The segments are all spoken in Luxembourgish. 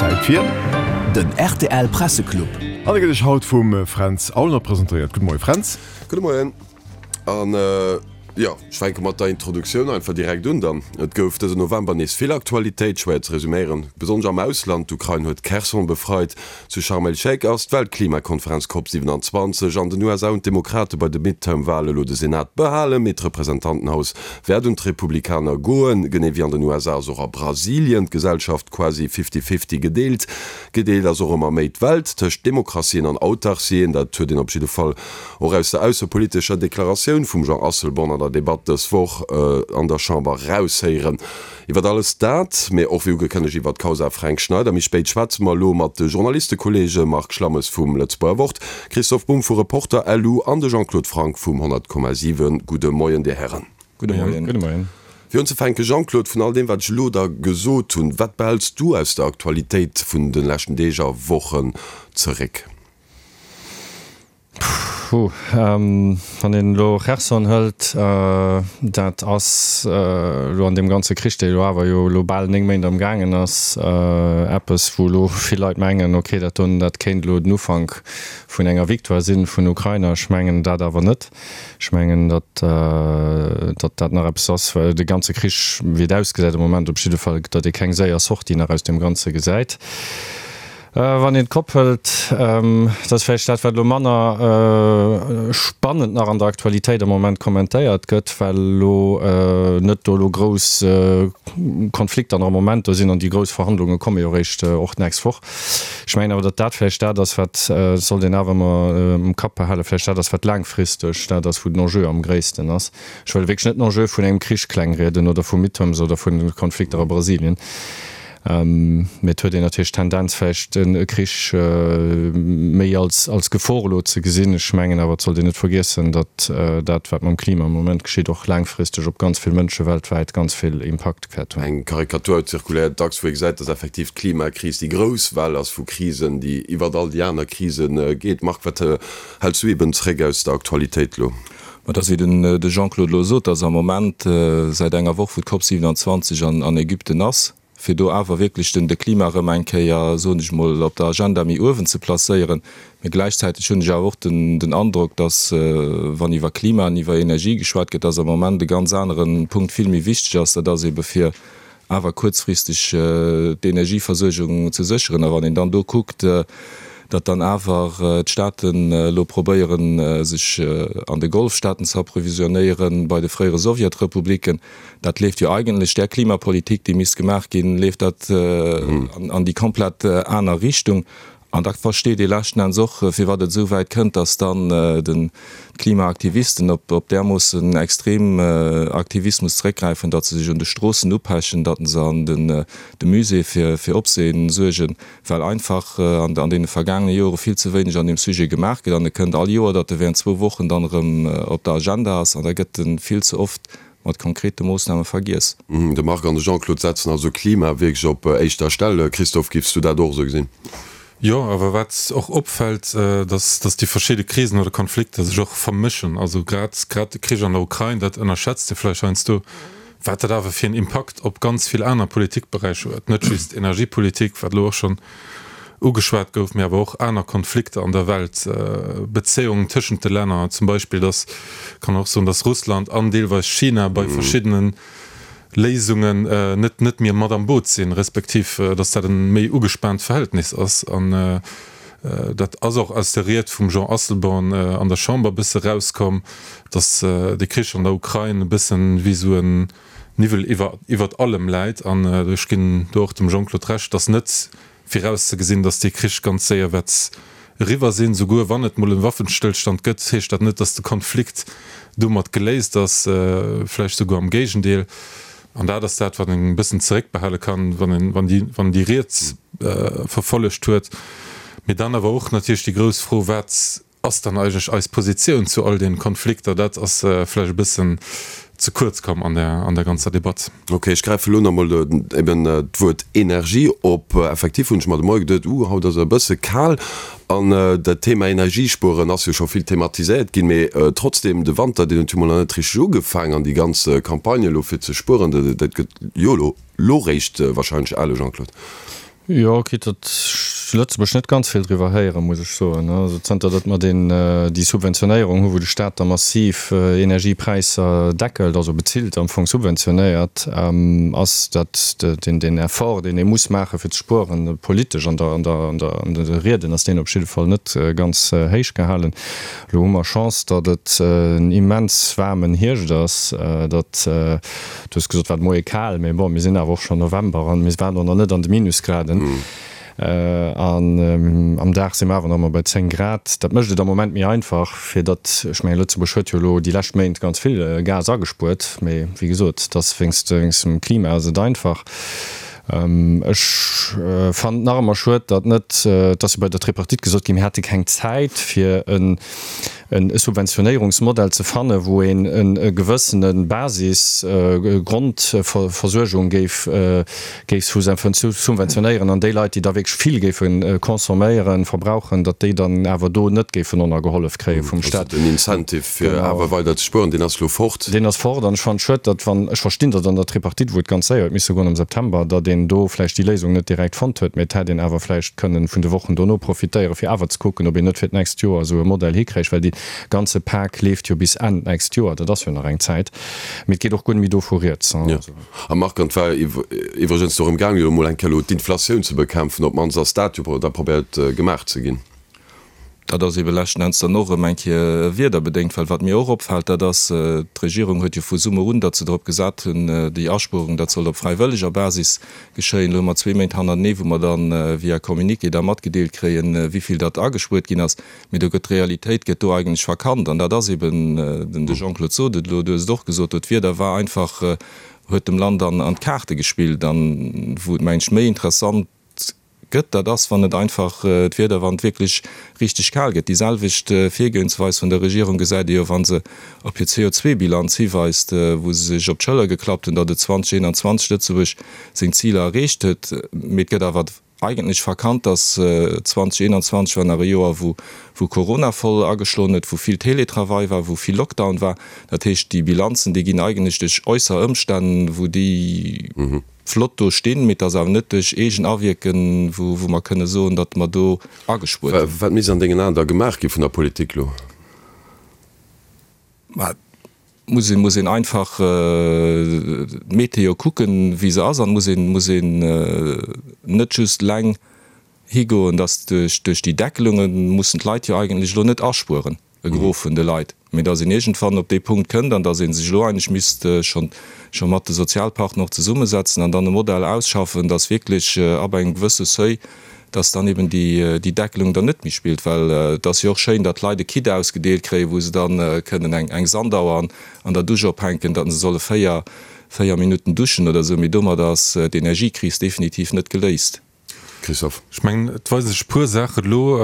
Zäit fir. Den rtl Presseclub. An e gëtt iech haut vum Fränz Aulner presentéiert. Gudde Moie Fränz. Gudde Moien. An jo, ech fänke mat der Introduktioun einfach direkt un dann. Et gouf dësen November nees vill Aktualitéit, schwéier ze resuméieren, besonnesch am Ausland. D'Ukrain huet Kherson befreit, zu Sharm el-Sheikh ass d'Weltklimakonferenz Cop 27, an den USA hunn d'Demokrate bei de Midterm-Wale lo de Senat behalen, mee d'Representantenhaus wäert un d'Republikaner goen. Genee wéi an den USA ass och a Brasilien d'Gesellschaft quasi fifty-fifty gedeelt. Gedeelt ass och ëmmer méi d'Welt tëscht Demokratien an Autarcien. Dat huet een op jidde Fall och aus der aussepolitescher Deklaratioun vum Jean Asselborn an der Debatt dës Woch an der Chamber raushéieren. Iwwert alles dat, mee och wéi ugekënnegt iwwert d'Kausa Fränk Schneider méi spéit schwätze mer elo mat de Journalistekolleege Marc Schlammes vum Lëtzebuerger Wort, Christoph Bumb vu Reporter LU an de Jean-Claude Franck vum 100,7. Gudde Moien, Dir Hären. Gudde Moien. Gudde Moien. Fir unzefänken, Jean-Claude, vun all deem wat ech elo da gesot hunn, wat behälls du aus der Aktualitéit vun de leschten Deeg a Wochen zeréck? Puh, wann een elo Cherson hëlt, dat ass elo an deem ganze Krich, dee elo awer jo elo bal 9 Méint am gaangen ass, eppes wou elo vill Leit mengen, ok, dat doen, dat kéint elo den Ufank vun enger Victoire sinn vun Ukrainer. Ech mengen dat awer net. Ech mengen, datt datt dat nach eppes ass, well de ganze Krich, wéi et ausgesäit am Moment op jidde Fall, datt ee keng séier Sortie nach aus deem Ganze gesäit. Wann een d'Kopp hëlt, dat ass vläicht dat, wat elo manner spannend nach an der Aktualitéit am Moment kommentéiert gëtt, well elo net do elo grouss Konflikter nach am Moment do sinn an déi grouss Verhandlunge komme jo eréischt och d'nächst Woch. Ech mengen awer, datt dat vläicht dat ass, wat, dat sollt een awer ëmmer am Kapp behalen, vläicht dat ass, wat laangfristeg dat ass, wou den Enjeu am gréissten ass. Ech wëll wierklech net den Enjeu vun engem Krich klengrieden oder vu Midterms oder vu Konflikter a Brasilien. Mee et huet een natierlech d'Tendenz vläicht e Krich méi als Gefor elo ze gesinn. Ech mengen awer, et sollt een net vergiessen, datt dat, wat mam Klima am Moment geschitt, och laangfristeg op ganz vill Mënsche weltwäit ganz vill Impakt wäert hunn. Eng Karikatur zirkuléiert dacks, wou ee gesäit, datt effektiv d'Klimakris déi grouss Well ass vu Krisen, déi iwwert all déi aner Krise geet. Marc, wat häls du eben zréck aus der Aktualitéit elo? Ma et ass wéi den de Jean-Claude elo sot, datt am Moment säit enger Woch, wou d'Cop 27 an Ägypten ass, fir do awer wierklech den de Klima erëm eng Kéier, soen ech mol, op der Agenda méi uewen ze placéieren. Mee gläichzäiteg hunn ech awer och den den Androck, datt wann iwwer Klima an iwwer Energie geschwat gëtt, datt am Moment e ganz anere Punkt vill méi wichteg ass, dat ass ebe fir awer kuerzfristeg d'Energieversuergung ze sécheren. A wann een dann do kuckt, datt dann awer d'Staaten elo probéieren, sech an de Golfstaaten ze approvisionnéieren, bei de fréiere Sowjetrepubliken, dat leeft jo eigentlech där Klimapolitik, déi misst gemaach ginn, leeft dat an déi komplett aner Richtung. An da versteet ee leschten Enns och, firwat et esou wäit kënnt, datt dann d'Klimaaktivisten op därmoossen extrem Aktivismus zeréckgräifen, datt se sech un de Stroossen upechen, datt se an de Muséeë fir Opsehen suergen, well einfach an deene vergaangene Jore vill ze wéineg an deem Sujet gemaach gëtt. An et kënnt all Joer, datt e während zwou Wochen dann erëm op der Agenda ass an da gëtt e vill ze oft mat konkrete Moossname vergiess. De Marc an de Jean-Claude setzen also Klima wierklech op éischter Stell. Christophe, giffs du dat och esou gesinn? Jo, awer wat och opfält, dass dass déi verschidde Krisen oder Konflikter sech och vermëschen. Also grad grad de Krich an der Ukrain, dat ënnerschätzt ee vläicht heiansdo, wat dat awer fir en Impakt op ganz vill aner Politikberäicher huet. Net just Energiepolitik, wat elo och schonn ugeschwat gouf, mee awer och aner Konflikter an der Welt, Bezéiungen tëschent de Länner, zum Beispill, dass, kann och soen, dass Russland an deelweis China bei verschiddene Léisungen net net méi mat am Boot sinn, respektiv dass dat e méi ugespaant Verhältnis ass. An dat ass och aus der Ried vum Jean Asselborn an der Chamber e bësse rauskomm, dass de Krich an der Ukrain e bëssen wéi esou en Niwwel iwwer iwwert allem läit. An ech ginn do och dem Jean-Claude Recht, dass net virauszegesinn, dass dee Krich ganz séier wäert eriwwer sinn. Souguer wann et mol e Waffenstëllstand gëtt, heescht dat net, dass de Konflikt domat geléist ass, vläicht souguer am Géigendeel. An dat ass dat, wat een e bëssen zeréckbehale kann, wann een wann déi wann déi Ried verfollegt huet. Mee dann awer och natierlech déi grouss Fro, Wat ass dann eigentlech eis Positioun zu all den Konflikter? Dat ass vläicht e bëssen ze kuerz komm an der an der ganzer Debatt. Ok, ech gräife lo nach mol eben d'Wuert Energie op. Effektiv hunn ech mer de Moie geduet, uh, haut ass et e bësse kal an dat Thema Energiespueren ass jo scho vill thematiséiert ginn, mee trotzdem, de Wanter, deen huet jo mol nach net richteg ugefaang an déi ganz Campagne elo fir ze spueren, dat gëtt jo elo lo réischt wahrscheinlech ale, Jean-Claude. Jo, quitte datt ech zu Lëtzebuerg net ganz vill driwwer héieren, muss ech soen. Also zanter datt mer deen, déi Subventionéierung hu wou de Staat da massiv Energiepräisser deckelt, also bezilt, am Fong subventionéiert, ass dat deen, deen Effort, deen ee muss maache fir ze spueren, politesch an der, an der, an der, an de Rieden ass deen op jidde Fall net ganz héich gehalen. Elo hu mer Chance, datt et en immens waarmen Hierscht ass, datt, du hues gesot, war de Moie kal, mee bon, mir sinn awer och schonn November an mir waren och nach net an de Minusgraden. An am Dag si mer awer nach ëmmer bei 10 Grad. Dat mécht et am Moment méi einfach, fir datt, ech mengen, Lëtzebuerg huet jo elo déi lescht Méint ganz vill Gas agespuert, mee wéi gesot, et ass wéinst dem Klima ass et einfach. Ech fannen et nach ëmmer schued, datt net, et ass jo bei der Tripartite gesot ginn, mir hätte keng Zäit fir e Subventionéierungsmodell ze fannen, wou een e gewëssene Basis, Grondversuergung géif géif subventionéieren an déi Leit, déi da wierklech vill géife consomméieren, verbrauchen, datt déi dann awer do net géifen ënnergehollef kréie vum Staat. Also den Incentive fir awer weider ze spueren, deen ass elo fort. Deen ass fort an ech fannen et schued, datt wann, ech verstinn, datt an der Tripartite, wou et ganz séier huet misse goen am September, datt een do vläicht déi Léisung net direkt fonnt huet, mee et hätt een awer vläicht kënnen vun de Wochen dono profitéieren, fir awer ze kucken, ob een net fir d'nächst Joer esou e Modell hikréich, well dee ganze Pak leeft jo bis Enn d'nächst Joer, dat ass jo nach eng Zäit, mee et geet och guer net méi do vu rieds. A Marc, an et war iwwregens dorëm gaangen, elo emol eng Kéier elo d'Inflatioun ze bekämpfen, op d'mannst ass dat jo da probéiert gemaach ze ginn. Dat ass ebe leschten Enns dann och erëm eng Kéier wiederbedéngt, well wat mir och opfält, dat ass, d'Regierung huet jo vu Summer un, datt se drop gesat hunn, déi Aspuerung, dat sollt op fräiwëlleger Basis geschéien. Elo hu mer zwee Méint hannertenee, wou mer dann via Communiqué da matgedeelt kréien, wéivill datt agespuert ginn ass. Mee do gëtt d'Realitéit gëtt do eigentlech verkannt. An dat ass eben, den de Jean-Claude sot et elo, du hues et och gesot, do d'Wieder war einfach, huet dem Land an d'Kaarte gespillt. An wou et, mengen ech, méi interessant gëtt, dat ass, wann et einfach d'Wieder, wann et wierklech richteg kal gëtt. Déi selwecht Virgoensweis vun der Regierung gesäit ee jo, wa se op hir CO2-Bilanz hiweist, wou se sech op d'Schëller geklappt hunn, datt et 2021 Lëtzebuerg seng Ziler erreecht huet. Mee et gëtt awer eigentlech verkannt, datt 2021 war nach e Joer, wou wou Corona voll ageschloen huet, wou vill Teletravail war, wou vill Lockdown war. Dat heescht, déi Bilanzen, déi ginn eigentlech duerch äusser Ëmstänn, wou déi, flott do stinn, mee et ass awer net duerch eegen Awierken, wou mer kënne soen, datt mer do agespuert hunn. Wat misst an dengen Aen da gemaach gi vun der Politik elo? Mä et muss een, muss een einfach d'Meteo kucken, wéi se ass, an muss een, muss een net just eleng higoen, datt duerch, duerch déi Deckelunge mussen d'Leit jo eigentlech elo net aspueren. e Gros vun de Leit, mee datt een iergendwann op dee Punkt kënnt an datt ee sech elo eigentlech misst scho scho mat de Sozialpartner och zesummesetzen an dann e Modell ausschaffen, datt wierklech ab engem gewësse Seuil, datt dann eben déi déi Deckelung dann net méi spillt. Well et ass jo och schéin, datt d'Leit e Kit ausgedeelt kréien, wou se dann kënnen eng eng Sandauer an an der Dusch ophänken, datt se solle 4 4 Minutten duschen oder esou, mee domadder ass d'Energiekris definitiv net geléist. Christophe. Ech mengen, et weisen sech e puer Saachen elo,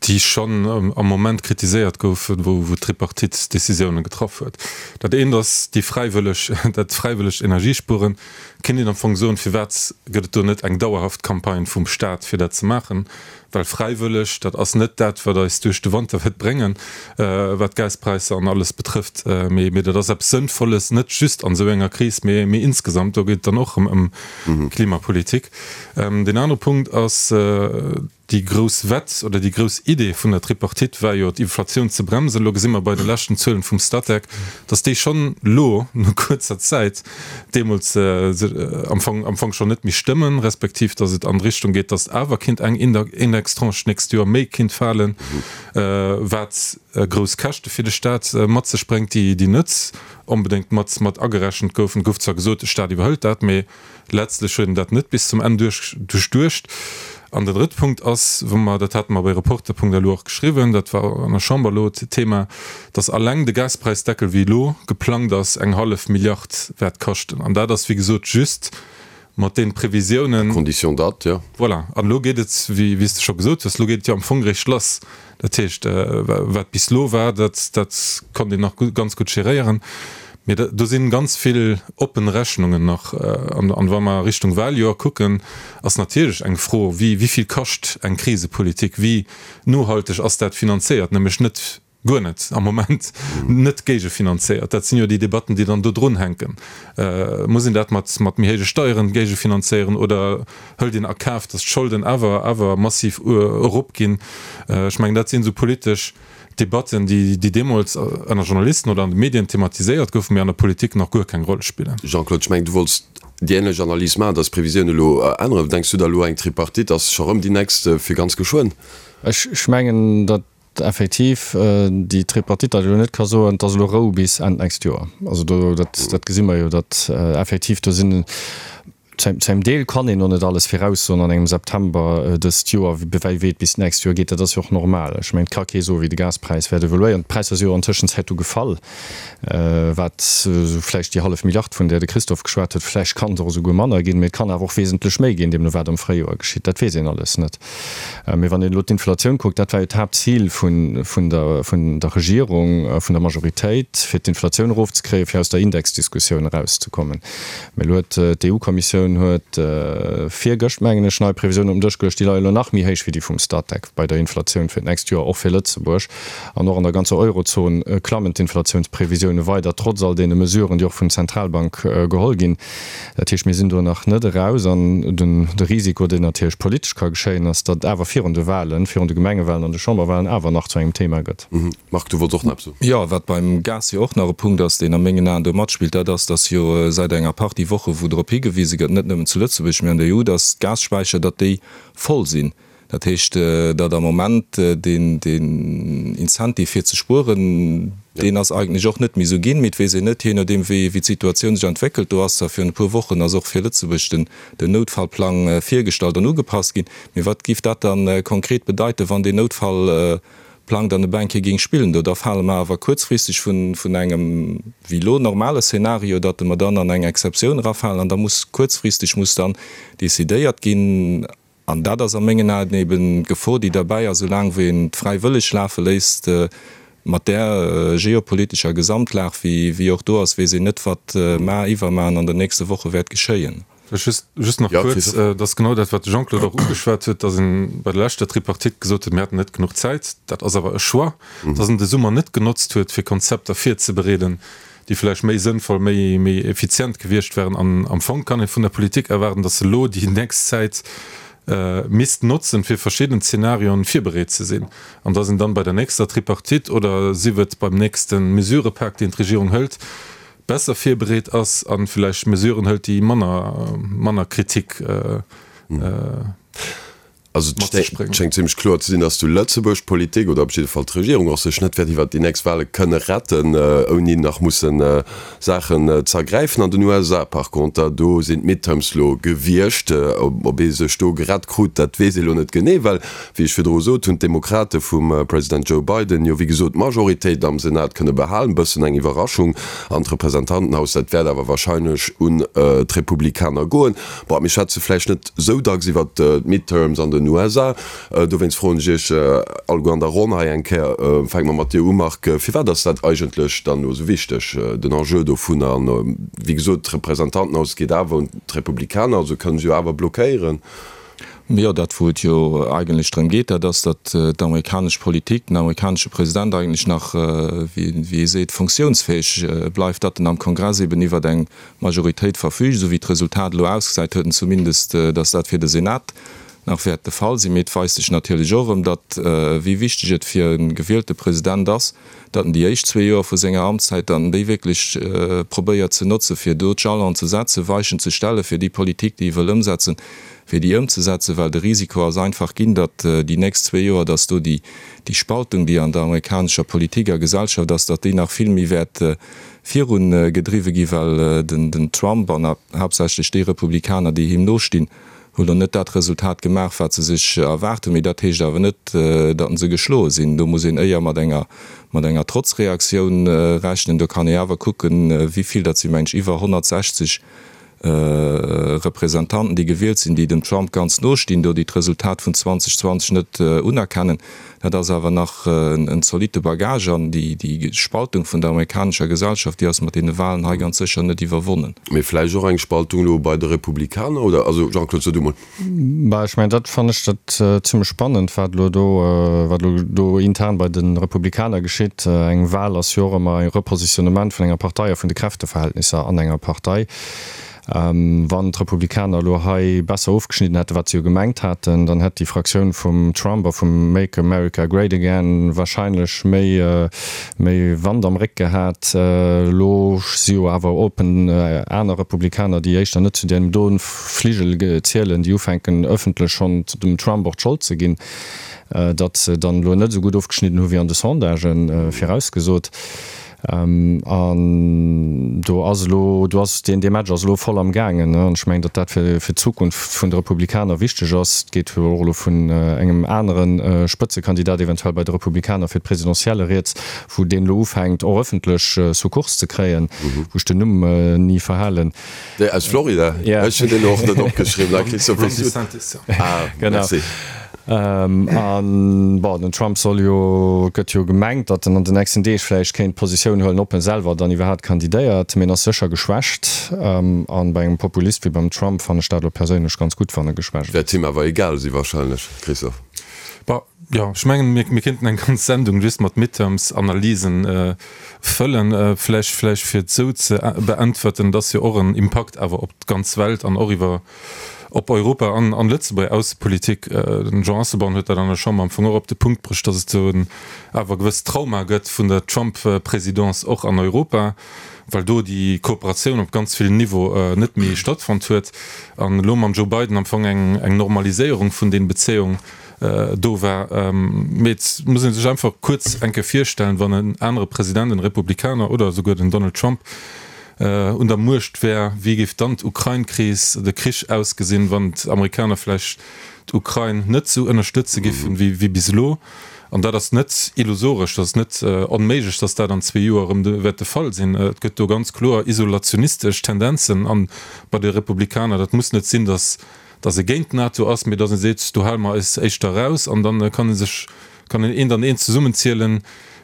déi schonn am Moment kritiséiert goufen, wou d'Tripartite Décisiounen getraff huet. Dat eent ass déi fräiwëlleg, dat fräiwëllegt Energiespueren. Kéint een am Fong soen, firwat gëtt et do net eng dauerhaft Campagne vum Staat, fir dat ze maachen? Well fräiwëlleg, dat ass net dat, wat eis duerch de Wanter wäert bréngen, wat d'Gaspräisser an alles betrëfft, mee dat ass eppes Sënnvolles, net just an esou enger Kris, mee insgesamt. Do geet et dann och erëm ëm Klimapolitik. Deen anere Punkt ass, déi grouss Wett oder déi grouss Idee vun der Tripartite war jo, d'Inflatioun ze bremsen. Elo gesi mer bei de leschten Zuelen vum Statec, datt déi schonn elo no kuerzer Zäit, deemools am Fong am Fong schonn net méi stëmmen, respektiv datt et an d'Richtung geet, datt awer kinnt eng Indextranche d'nächst Joer méi kinnt falen, wat grouss Käschte fir de Staat mat sech bréngt, déi déi net onbedéngt mat mat agerechent goufen. Et gouf zwar gesot, de Staat iwwerhëlt dat, mee Letztlech huet en dat net bis zum Enn duerchduecht. An den drëtte Punkt ass, wou mer, dat hate mer bei Reporter.lu och geschriwwen, dat war an der Chamber elo d'Thema, dass alleng de Gaspräisdeckel, wéi elo geplangt ass, eng hallef Milliard wäert kaschten. An dat ass, wéi gesot, just mat deene Previsiounen. À condition datt, jo. Voilà. An elo geet et, wéi s de scho gesot hues, elo geet et jo am Fong eréischt lass. Dat heescht, wat bis elo war, dat, dat konnt een nach ganz gutt geréieren. Mee do si ganz vill oppen Rechnungen nach. An wa mer Richtung Wahljoer kucken, ass natierlech eng Fro, wéi, wéi vill kascht eng Krisepolitik, wéi nohalteg ass dat finanzéiert, nämlech net. Guer net am Moment net géigefinanzéiert. Dat sinn jo déi Debatten, déi dann do drun hänken. Muss een dat mat mat méi héije Steieren géigefinanzéieren oder hëlt een a Kaf, datt d'Scholden awer awer massiv eropginn? Ech mengen, dat sinn esou politesch Debatten, déi déi deemools ënner Journalisten oder an de Medien thematiséiert goufen, mee an der Politik nach guer keng Roll spillen. Jean-Claude, ech mengen, du wollts déi änlech Analys maachen, datt d'Previsiounen elo änneren. Denks du da elo, eng Tripartite ass scho rëm déi nächst fir ganz geschwënn? Ech mengen, datt effektiv déi Tripartite dat elo net ka soen, et ass elo Rou bis Enn d'nächst Joer. Also do, dat, dat gesi mer jo, datt effektiv do sinn, zu engem Deel kann een och net alles viraussoen an engem September dëst Joer, wéi wéi et bis d'nächst Joer geet. Dat ass jo och normal. Ech mengen, et ka kee soen, wéi de Gaspräis wäert evoluéieren. D'Präisser si jo an Tëschenzäit du gefall, wat esou vläicht déi hallef Milliard, vun där de Christophe geschwat huet, vläicht kann et och esouguer manner ginn, mee et kann awer och wesentlech méi ginn, deemno wat am Fréijoer geschitt. Dat weess een alles net. Mee wann een elo d'Inflatioun kuckt, dat war jo d'Haaptzil vun der Regierung, vun der Majoritéit, fir d'Inflatioun erofzekréien, fir aus der Indexdiskussioun erauszekommen. Mee elo huet d'EU-Kommissioun huet virgëscht, mengen ech, nei Previsiounen op den Dësch geluecht, déi leie elo nach méi héich wéi déi vum Statec bei der Inflatioun fir d'nächst Joer, och fir Lëtzebuerg. An och an der ganzer Eurozon klammen d'Inflatiounsprevisioune weider, trotz all deene Mesuren, déi och vun Zentralbank geholl ginn. Dat heescht, mir sinn do nach net eraus. An de Risiko, deen natierlech politesch ka geschéien, ass, datt et awer virun de Wahlen, virun de Gemengewahlen an de Chamberwahlen awer nach zu engem Thema gëtt. Marc, du wollts och nach eppes soen? Jo, wat beim Gas jo och nach e Punkt ass, deen a mengen Aen do matspillt, dat ass, datt jo säit enger Partie Woche wou drop higewise gëtt, net nëmmen zu Lëtzebuerg, mee an der EU, datt d'Gasspäicher, datt déi voll sinn. Dat heescht, datt am Moment deen Incentive fir ze spueren, deen ass eigentlech och net méi esou ginn. Mee et weess een net, jee nodeem wéi d'Situatioun sech entwéckelt. Do ass zwar virun e puer Wochen ass och fir Lëtzebuerg den Noutfallplang virgestallt an ugepasst ginn. Mee wat géif dat da konkret bedeiten, wann deen Noutfallplang dann e eng Kéier géing spillen? Do da fale mer awer kuerzfristeg vun engem wéi elo normale Szenario, datt mer dann an eng Exceptioun erafalen an da muss kuerzfristeg muss dann decidéiert ginn, An dat ass a mengen Aen eben d'Gefor, déi derbäi ass, soulaang wéi een et fräiwëlleg lafe léisst, mat där geopolitescher Gesamtlag, wéi och do ass, weess een net, wat mar, iwwermar an an den nächste Woche wäert geschéien. Vläicht just nach kuerz, Et ass genau dat, wat de Jean-Claude och ugeschwat huet, dass ee bei der leschter Tripartite gesot huet, mir hätten net genuch Zäit. Dat ass awer e Choix, dass een de Summer net genotzt huet, fir Konzepter virzebereeden, déi vläicht méi sënnvoll, méi, méi effizient gewiescht wären. An am Fong kann ee vun der Politik erwaarden, datt se elo déi nächst Zäit misst notzen, fir verschidden Zenarioen virbereet ze sinn, an datt een dann bei der nächster Tripartite oder sief et beim nächste Mesurëpak, deen d'Regierung hëlt, besser virbereet ass a vläicht Mesuren hëlt, déi manner, manner Kritik Also et schéngt zimlech kloer ze sinn, datt zu Lëtzebuerg d'Politik, oder op jidde Fall d'Regierung och, sech net wäert iwwert déi nächst Wahle kënne retten, ouni nach musse Saachen z'ergräifen. An den USA par conter, do sinn d'Midterms lo gewiescht. Ob ee sech do gerett krut, dat weess ee lo net genee, well, wéi ech virdru sot, hunn d'Demokrate vum President Joe Biden jo wéi gesot d'Majoritéit am Senat kënne behalen. Bëssen eng Iwwerraschung. An d'Representantenhaus, dat wäert awer wahrscheinlech un d'Republikaner goen. Bon, mir schwätze vläicht net sou dacks iwwert d'Midterms an den USA. Dowéinst froen ech Iech alleguer an der Ronn hei eng Kéier, fänke mer mat dir u Marc, firwat ass dat eigentlech dann elo sou wichteg, den Enjeu dovunner? An wéi gesot, d'Representantenhaus geet awer un d'Republikaner, also kënnen se jo awer blockéieren. Jo, dat wou et jo eigentlech drëm geet, dat ass, datt d'amerikanesch Politik, den amerikanesche President eigentlech nach, wéi ee seet, funktiounsfäeg bleift, datt en am Kongress eben iwwert eng Majoritéit verfügt, esou wéi d'Resultat elo ausgesäit, huet en zumindest, datt dat fir de Senat nach wäert de Fall sinn. Mee et weist sech natierlech och erëm, datt wéi wichteg et fir e gewielte President ass, datt en déi éischt zwee Joer vu senger Amtszäit, datt en déi wierklech probéiert ze notzen, fir do d'Jalonen ze setzen, Weichen ze stellen, fir déi Politik, déi e wëll ëmsetzen, fir déi ëmzesetzen, well de Risiko ass einfach ginn, datt déi nächst zwee Joer, datt do déi Spaltung, déi an der amerikanescher Politik a Gesellschaft ass, datt déi nach vill méi wäert virun gedriwwe gi, well den Trump an haaptsächlech déi Republikaner, déi him nostinn, hu lo net dat Resultat gemaach, wat se sech erwaart hunn. Mee dat heescht awer net, datt se geschloe sinn. Do muss een éier mat enger mat enger Trotzreaktioun rechnen. Do kann ee awer kucken, wéi vill, dat si mengen ech iwwer 160. Representanten, déi gewielt sinn, déi dem Trump ganz no stinn, do déi d'Resultat vun 2020 net unerkennen. Dat ass awer nach en zolitte Bagage an déi Spaltung vun der amerikanescher Gesellschaft, déi ass mat deene Wahlen hei ganz sécher net iwwerwonnen. Mee vläicht och eng Spaltung elo bei de Republikaner, oder? Also, Jean-Claude, so du mol. Bah, ech mengen, dat fannen ech dat zimlech spannend, wat elo do, wat elo do intern bei de Republikaner geschitt. Eng Wahl ass jo och ëmmer e Repositionnement vun enger Partei a vun de Kräfteverhältnisser an enger Partei. Wann d'Republikaner elo hei besser ofgeschnidden hätten, wat se jo gemengt haten, dann hätt déi Fraktioun vum Trump a vum Make America Great Again wahrscheinlech méi, méi Wand am Réck gehat. Elo si jo awer open aner Republikaner, déi éischter net zu deem do Fligel zielen, déi ufänken ëffentlech schonn dem Trump och d'Schold ze ginn, datt se dann elo net esou gutt ofgeschnidden hu wéi an de Sondagë virausgesot. An do ass elo, do ass deen, dee Match ass elo voll am gaangen. An ech mengen, datt dat fir fir d'Zukunft vun de Republikaner wichteg ass. Et geet jo och elo vun engem anere Spëtzekandidat eventuell bei de Republikaner fir d'Presidentielle rieds, wou deen elo ufänkt och ëffentlech Sukkurs ze kréien, wou ech den Numm ni verhalen. Dee aus Florida? Ja. Ech hunn deen och net opgeschriwwen. Ah, Christophe, Ron wéi s du. DeSantis, ja. Ah, Genau. merci. An, bon, den Trump soll jo, et gëtt jo gemengt, datt en an den nächsten Deeg vläicht kéint Positioun huelen, ob en selwer dann iwwerhaapt kandidéiert. Mee en ass sécher geschwächt. An bei engem Populist wéi beim Trump fannen ech dat elo perséinlech ganz gutt, wann e geschwächt ass. Wäert him awer egal si wahrscheinlech, Christophe. Bon, jo, ech mengen, mir, mir kéinten eng ganz Sendung just mat Midterms-Analysen fëllen. Vläicht, vläicht fir et esou ze beäntwerten, et ass jo och en Impakt awer op d'ganz Welt an och iwwer op Europa an an Lëtzebuerger Aussepolitik. Den Jean Asselborn huet dat an der Chamber am Fong och op de Punkt bruecht, datt et do en awer gewësst Trauma gëtt vun der Trump-Présidence och an Europa, well do déi Kooperatioun op ganz villen Niveau net méi stattfonnt huet an elo mam Joe Biden am Fong eng eng Normaliséierung vun den Bezéiung do war. Mee et muss ee sech einfach kuerz eng Kéier virstellen, wann en anere President, en Republikaner oder esouguer den Donald Trump, un der Muecht wär, wéi géif dann d'Ukrain-Kris, de Krich ausgesinn, wann d'Amerikaner vläicht d'Ukrain net esou ënnerstëtze giffen wéi bis elo? An dat ass net illusoresch, dat ass net onméiglech, datt dat an zwee Joer erëm wäert de Fall sinn. Et gëtt do ganz kloer isolationistesch Tendenzen an bei de Republikaner. Dat muss net sinn, datt datt ee géint d'NATO ass, mee datt ee seet, do hale mer eis éischter eraus an da kann ee sech, kann een eent an eent zesummenzielen,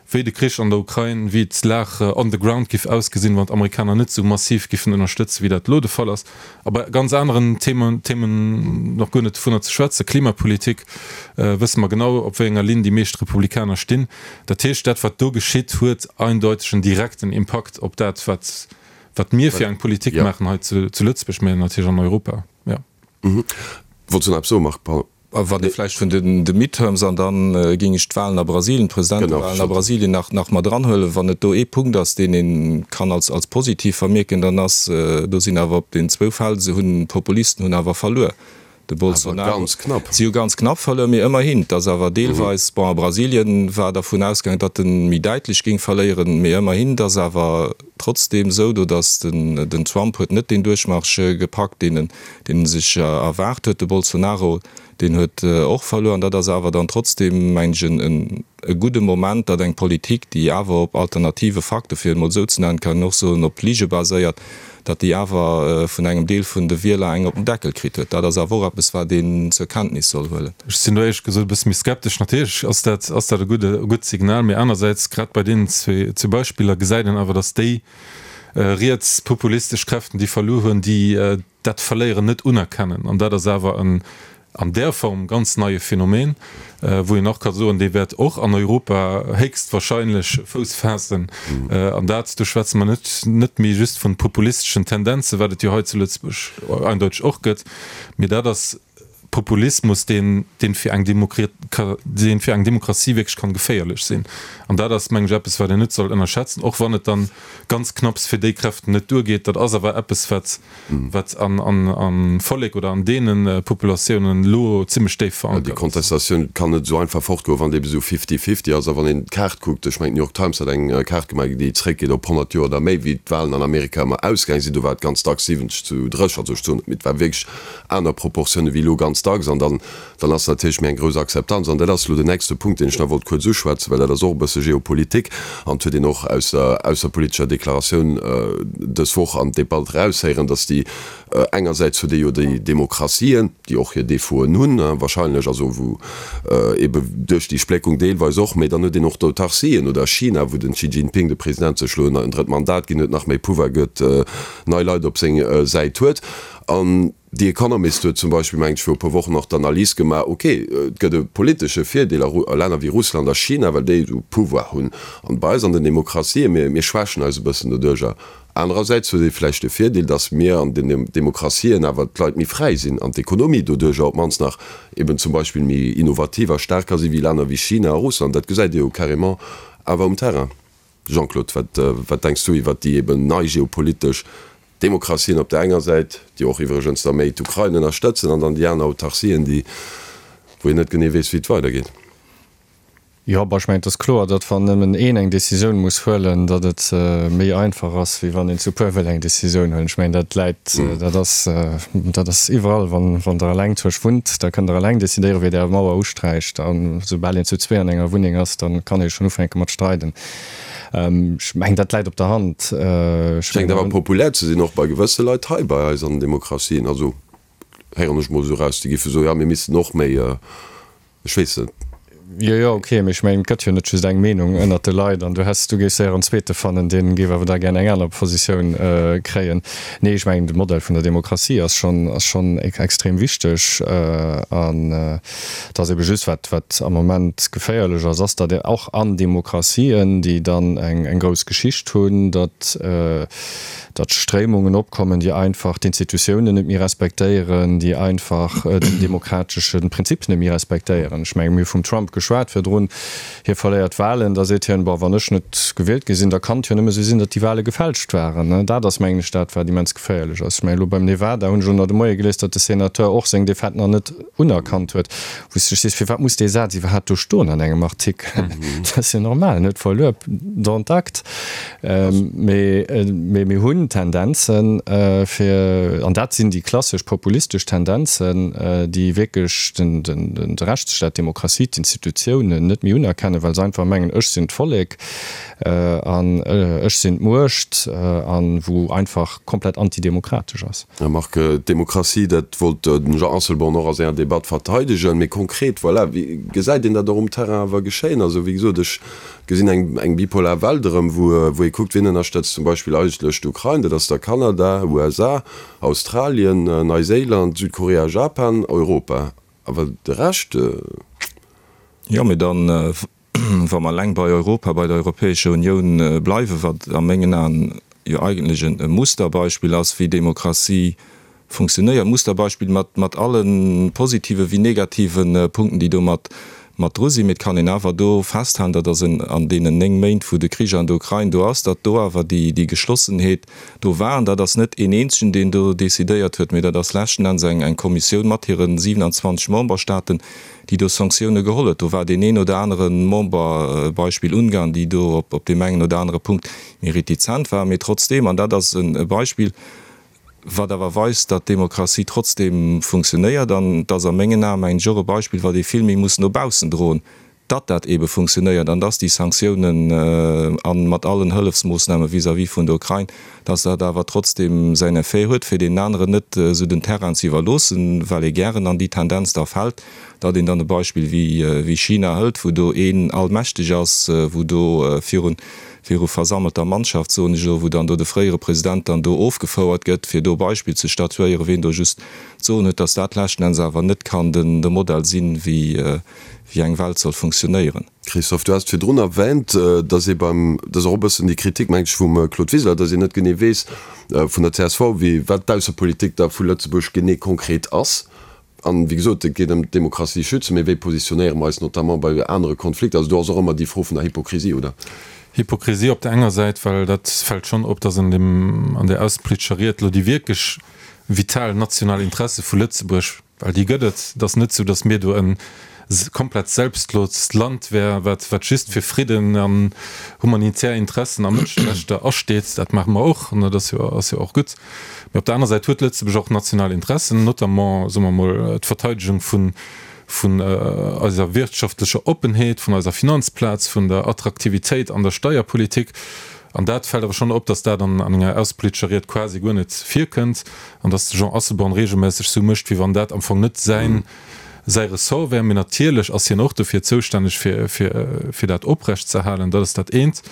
wéi de Krich an der Ukrain, wéi d'Lag on the ground giff ausgesinn, wann d'Amerikaner net esou massiv giffen ënnerstëtzen, wéi dat elo de Fall ass. A bei ganz aneren Themen, Themen nach guer net dovunner ze schwätzen, Klimapolitik, wësse mer genau, op wéi enger Linn déi meescht Republikaner stinn. Dat heescht, dat wat do geschitt, huet eindeuteg en direkten Impakt op dat, wat, wat mir fir eng Politik maachen hei zu Lëtzebuerg, mä natierlech an Europa. Jo. Wollts du nach eppes soen, Marc? Pardon. Wann ee vläicht vun de Midterms, an da géing ech d'Wahlen a Brasilien, d'Presidentewahlen a Brasilien nach nach mat eranhuelen, wann et do ee Punkt ass, deen ee kann als als positiv vermierken, dann ass, do sinn awer op den zwou Feld, se hunn, d'Populisten hunn awer verluer, de Bolsonaro, si hu ganz knapp verluer, mee ëmmerhin, et ass awer deelweis, bon a Brasilien war dervun ausgaangen, datt en méi däitlech géing verléieren, mee ëmmerhin, et ass awer trotzdeem esou do, datt den den Trump huet net deen Duerchmarsch gepackt, deen en deen en sech erwaart huet. De Bolsonaro, deen huet och verluer. An dat ass awer dann trotzdeem, mengen ech, en e gudde Moment, datt eng Politik, déi awer op alternative Fakte, fir et emol esou ze nennen, kann een och soen, op Lige baséiert, datt déi awer vun engem Deel vun de Wieler eng op den Deckel kritt huet. Dat ass awer och eppes, wat een zur Kenntnis soll huelen. Ech sinn do éierlech gesot e bësse méi skeptesch. Natierlech ass dat, ass dat e gudde, e gutt Signal, mee anersäits, grad bei deenen zwee Beispiller gesäit een awer, datt déi rietspopulistesch Kräften, déi verluer hunn, déi dat Verléieren net unerkennen. An dat ass awer en an där Form ganz neie Phänomen, wou een och ka soen, dee wäert och an Europa héchstwahrscheinlech Fouss faassen. An dat, do schwätze mer net net méi just vun populisteschen Tendenzen, wat et jo hei zu Lëtzebuerg eindeuteg och gëtt, mee dat ass Populismus, deen deen fir eng deen fir eng Demokratie wierklech kann geféierlech sinn. An dat ass, mengen ech, eppes, wat een net soll ënnerschätzen, och wann et dann ganz knapps fir déi Kräften net duergeet. Dat ass awer eppes, wat wat an an am Vollek oder an deene Populatiounen elo zimmlech déif verankert ass. Déi Kontestatioun kann net esou einfach fortgoen, wann et ebe sou fifty-fifty ass. A wann een d'Kaart kuckt, ech mengen d'New York Times hat eng Kaart gemaach, déi zréckgeet op 100 Joer oder méi, wéi d'Wahlen an Amerika ëmmer ausgaang sinn, do war et ganz dacks 70 zu 30, also ech soen net, mee et war wierklech aner Proportioune wéi elo ganz dacks. dacks an dann, dann ass natierlech méi eng grouss Akzeptanz. An dat ass elo den nächste Punkt, deen ech nach wollt kuerz uschwätzen, well dat ass och e bësse Geopolitik an et huet een och aus der ausserpolitescher Deklaratioun dës Woch an d'Debatt eraushéieren, dass déi engersäits huet ee jo déi Demokratien, déi och hir Défauten hunn wahrscheinlech, also wou ebe duerch déi Spléckung deelweis och, mä dann huet een och d'Autarcien oder China, wou den Xi Jinping, de President, sech elo en drëtt Mandat ginn huet, nach méi Pouvoir gëtt, nei Leit op seng Säit huet. An The Economist huet zum Beispill, mengen ech, viru e puer Wochen och d'Analys gemaach, ok, et gëtt e politesche Virdeel a Länner wéi Russland a China, well déi esou Pouvoir hunn. An bei eis an den Demokratien, mir, mir schwächen eis e bëssen doduercher. Anerersäits huet ee vläicht de Virdeel, datt mir an den Demokratien awer d'Leit méi fräi sinn an d'Ekonomie doduercher op d'mannst nach eben zum Beispill méi innovativ a staark ka si wéi Länner wéi China a Russland. Dat gesäit ee jo carrément awer um Terrain. Jean-Claude, wat, wat denks du iwwert déi eben nei geopolitesch Demokratien op der enger Säit, déi och iwwregens da méi d'Ukrain ënnerstëtzen, an dann déi aner Autarcien, déi, wou een net genee weess, wéi et weidergeet? Jo, bon, ech mengen, et ass kloer, datt wann nëmmen een eng Décisioun muss huelen, datt et méi einfach ass, wéi wann een zu puer wëll eng Décisioun huelen. Ech mengen, dat läit, dat ass, dat ass iwwerall. Wann, wann Der eleng zu Esch wunnt, da kënnt Der eleng décidéieren, wéi Der Är Mauer usträicht. A soubal een zu zwee an enger Wunneng ass, da kann ee schonn ufänke mat streiden. Ech mengen, dat läit op der Hand. Ech Schéngt awer populär ze sinn, och bei gewësse Leit hei bei eis an den Demokratien. Also héieren ech mol esou eraus, déi géife soen, jo, mir missten och méi, ech weess net. Jo, jo, ok, mee ech mengen, et gëtt jo net just eng Meenung ënnert de Leit an du häss, du géifs séier en zweete fannen, dee géif awer da gär eng aner Positioun kréien. Nee, ech mengen, de Modell vun der Demokratie ass schonn, ass schonn extrem wichteg an et ass ebe just, wat, wat am Moment geféierlech ass, ass, datt och an Demokratien, déi dann eng, eng grouss Geschicht hunn, datt, datt Stréimungen opkommen, déi einfach d'Institutiounen net méi respektéieren, déi einfach den demokratesche Prinzip net méi respektéieren. Ech menge mir hu vum Trump geschwat virdrun, hie verléiert d'Wahlen, da seet hien, bon, wann ech net gewielt gi sinn, da kann et jo nëmme sou sinn, datt déi Wahle gefälscht waren. Dat ass, mengen ech, dat wat immens geféierlech ass. Ech menge elo beim Nevada hunn ech elo nach de Moie gelies, datt de Senateur och seng Defaite nach net unerkannt huet, wou s de dech sees, firwat muss dee Saz iwwerhaapt do stoen an engem Artikel? Dat ass jo normal, en huet verluer, dont acte. Mee mir hunn Tendenzen, fir, an dat sinn déi klassesch populistesch Tendenzen, déi wierklech de Rechtsstaat, d'Demokratie, d'Institutiounen net méi unerkennen, well se einfach mengen, ech sinn d'Vollek an ech sinn d'Muecht, a wou einfach komplett antidemokratesch ass. Här Margue, d'Demokratie, dat wollt den Jean Asselborn och a senger Debatt verteidegen. Mee konkret, voilà, wéi gesäit een dat och um Terrain awer geschéien? Also, wéi gesot, ech gesinn eng, eng bipolar Welt erëm, wou, wou ee kuckt, wien ënnerstëtzt zum Beispill eigentlech d'Ukrain, dat ass da Kanada, USA, Australien, Neiséiland, Südkorea, Japan, Europa. Awer de Rescht? Jo, mee dann, wa mer eleng bei Europa, bei der Europäescher Unioun bleiwen, wat a mengen Aen jo eigentlech e Musterbeispill ass, wéi Demokratie funktionéiert, Musterbeispill mat, mat alle positive wéi negative Punkten, déi do mat, mat dru sinn. Mee et kann een awer do festhalen, datt ass en, an deenen 9 Méint, wou de Krich an der Ukrain do ass, datt do awer déi, déi Geschlossenheet do war. An dat ass net een eenzegen, deen do decidéiert huet, mee dat ass leschten Enns eng, eng Kommissioun mat hire 27 Memberstaaten, déi do Sanktioune geholl huet. Do war deen een oder anere Member, Beispill Ungarn, déi do op, op deem engen oder anere Punkt méi retizent waren. Mee trotzdeem, an dat ass e Beispill, wat awer weist, datt d'Demokratie trotzdeem funktionéiert, an et ass a mengen Aen, mengen ech, och e Beispill, wat ee vill méi muss no baussen droen, datt dat eebe funktionéiert an datt déi Sanktiounen a mat allen Hëllefsmoossname vis-à-vis vun der Ukrain, datt dat awer trotzdeem säin Effet huet, fir deenen aneren net esou den Terrain ze iwwerloossen, well ee gären an déi Tendenz da fält, datt een dann e Beispill wéi China hëlt, wou do een allmächteg ass, wou do virun viru versammelter Mannschaft, soen ech elo, wou dann do de fréiere President dann do ofgefouert gëtt, fir do Beispill ze statuéieren, ween do just d'Soen huet, dass dat leschten Enns awer net kann den de Modell sinn, wéi wéi eng Welt soll funktionéieren. Christophe, du has et virdrun erwähnt, dass ee beim, dat ass och e bëssen déi Kritik, meng ech, vum Claude Wiseler, dass een net genee weess vun der csv, wéi, wat d'Aussepolitik da vu Lëtzebuerg genee konkret ass. An, wéi gesot, et geet ëm d'Demokratie schützen, mee wéi positionéiere mer eis notamment bei anere Konflikter? Also do ass och ëmmer déi Fro vun der Hypokrisie, oder? Hypokrisie op der enger Säit, well dat fält schonn op, datt an deem, an där aussepolitescher Ried elo déi wierklech vital national Interesse vu Lëtzebuerg, well déi gëtt et, et ass net esou, datt mir do en. komplett selbstlost Land wär, wat wat just fir Fridden an humanitär Interessen a Mënscherechter asteet. Dat maache mer och, an dat ass jo ass jo och gutt. Mee op der aner Säit huet Lëtzebuerg och national Interessen, notamment, soe mer emol, d'Verteidegung vun vun eiser wirtschaftlecher Oppenheet, vun eiser Finanzplaz, vun der Attraktivitéit an der Steierpolitik. An dat fält awer schonn op, datt dat an enger aussepolitescher Ried quasi guer net virkënnt an datt de Jean Asselborn regelméisseg esou mécht, wéi wann dat am Fong net säin säi Ressort wär. Mee natierlech ass hien och dofir zoustänneg, fir fir fir dat oprecht ze halen. Dat ass dat eent,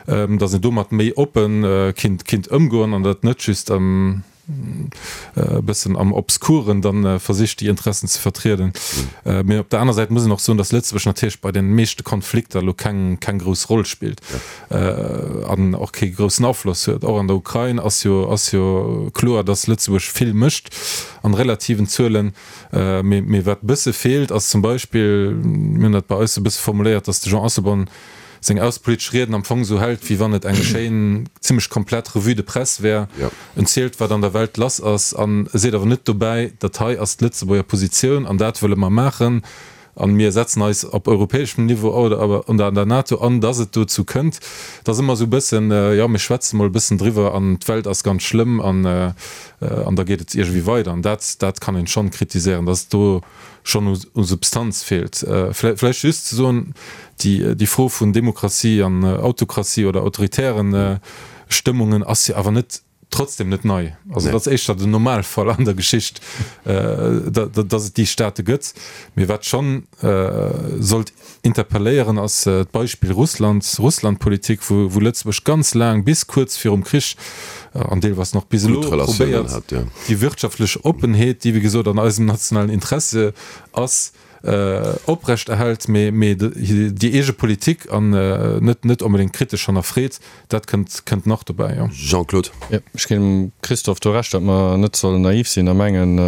datt een domat méi oppe kinnt kinnt ëmgoen an dat net just e bëssen am Obskuren dann versicht déi Interessen ze vertrieden. Mee op der aner Säit muss een och soen, datt Lëtzebuerg natierlech bei den meeschte Konflikter elo keng keng grouss Roll spillt an och kee groussen Afloss huet. Och an der Ukrain ass jo ass jo kloer, datt Lëtzebuerg vill mécht an relativen Zuelen. Mee mee wat e bësse feelt ass zum Beispill, mir hunn dat bei eis e bësse formuléiert, datt de Jean Asselborn seng aussepolitesch Rieden am Fong esou hält, wéi wann et eng schéin, zimmlech komplett Revue de presse wär. En zielt, wat an der Welt lass ass, an e seet awer net dobäi, dat hei ass d'Lëtzebuerger Positioun an dat wëlle mer maachen a mir setzen eis op europäeschem Niveau oder an der NATO an, dass et dozou kënnt. Et ass ëmmer esou e bëssen, jo, mir schwätze mol e bëssen driwwer an d'Welt ass ganz schlëmm an an da geet et iergendwéi weider. An dat, dat kann een schonn kritiséieren, dass do schonn u Substanz feelt. Vläicht just ze soen, déi Fro vun Demokratie an Autokratie oder autoritären Stëmmungen ass jo awer net trotzdem net nei. Also dat ass éischter den Normalfall an der Geschicht, datt et déi Staate gëtt. Mee wat schonn sollt interpelléieren, ass d'Beispill Russland, Russlandpolitik, wou Lëtzebuerg ganz laang, bis kuerz virum Krich an deelweis nach bis elo, probéiert, déi wirtschaftlech Oppenheet, déi wéi gesot an eisem nationalen Interesse ass, oprecht erhält, mee déi eege Politik an net net onbedéngt kritesch hannerfreet. Dat kënnt kënnt nach dobäi, jo. Jean-Claude. Jo, ech ginn dem Christophe do Recht, datt mer net sollen naiv sinn a mengen,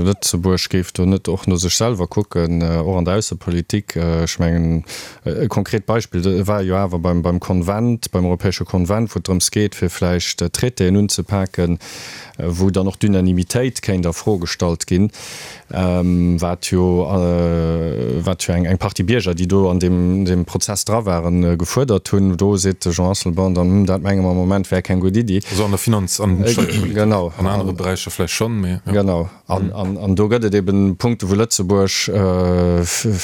Lëtzebuerg géif do net och no sech selwer kucken, och an der Aussepolitik. Ech mengen, e konkret Beispill war jo awer beim beim Konvent, beim europäesche Konvent, wou et drëms geet, fir vläicht Traitéen unzepaken, wou dann och d'Unanimitéit kéint a Fro gestallt ginn. wat jo wat jo eng Partie Bierger, déi do an deem Prozess dra waren, gefuerdert hunn. Do seet de Jean Asselborn dann, Hm, dat menge mer am Moment wär keng gutt Iddi. Also an der Finanz an Steierpolitik. Genau. An anere Beräicher vläicht schonn, mee jo. Genau. An do gëtt et eben Punkte wou Lëtzebuerg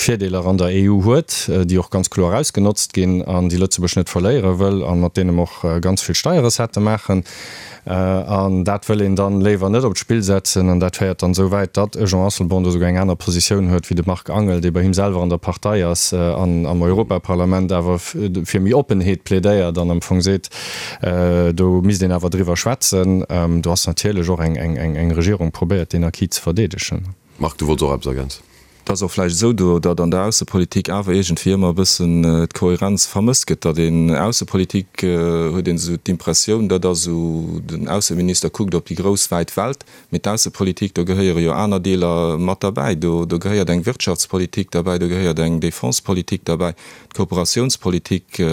Virdeeler an der EU huet, déi och ganz kloer ausgenotzt ginn an déi Lëtzebuerg net verléiere wëll a mat deene mer och ganz vill Steierrecettë maachen. An dat wëll een dann léiwer net op d'Spill setzen. An dat féiert dann esou wäit, datt e Jean Asselborn do souguer eng aner Positioun huet wéi de Marc Angel, dee bei him selwer an der Partei ass an am Europaparlament awer fir méi Oppenheet plädéiert an am Fong seet, do misst een awer driwwer schwätzen. Do ass natierlech och eng Regierung probéiert, deen Acquis ze verdeedegen. Marc, du wollts och eppes ergänzen? Et ass och vläicht esou do, datt an der Aussepolitik awer iergendwéi ëmmer e bëssen d'Kohärenz vermësst gëtt, datt een Aussepolitik, huet een esou d'Impressioun, dat ass esou, den Ausseminister kuckt op déi grouss wäit Welt, mee d'Aussepolitik, do gehéiere jo aner Deeler mat derbäi, do gehéiert eng Wirtschaftspolitik derbäi, do gehéiert eng Defensepolitik derbäi, d'Kooperatiounspolitik,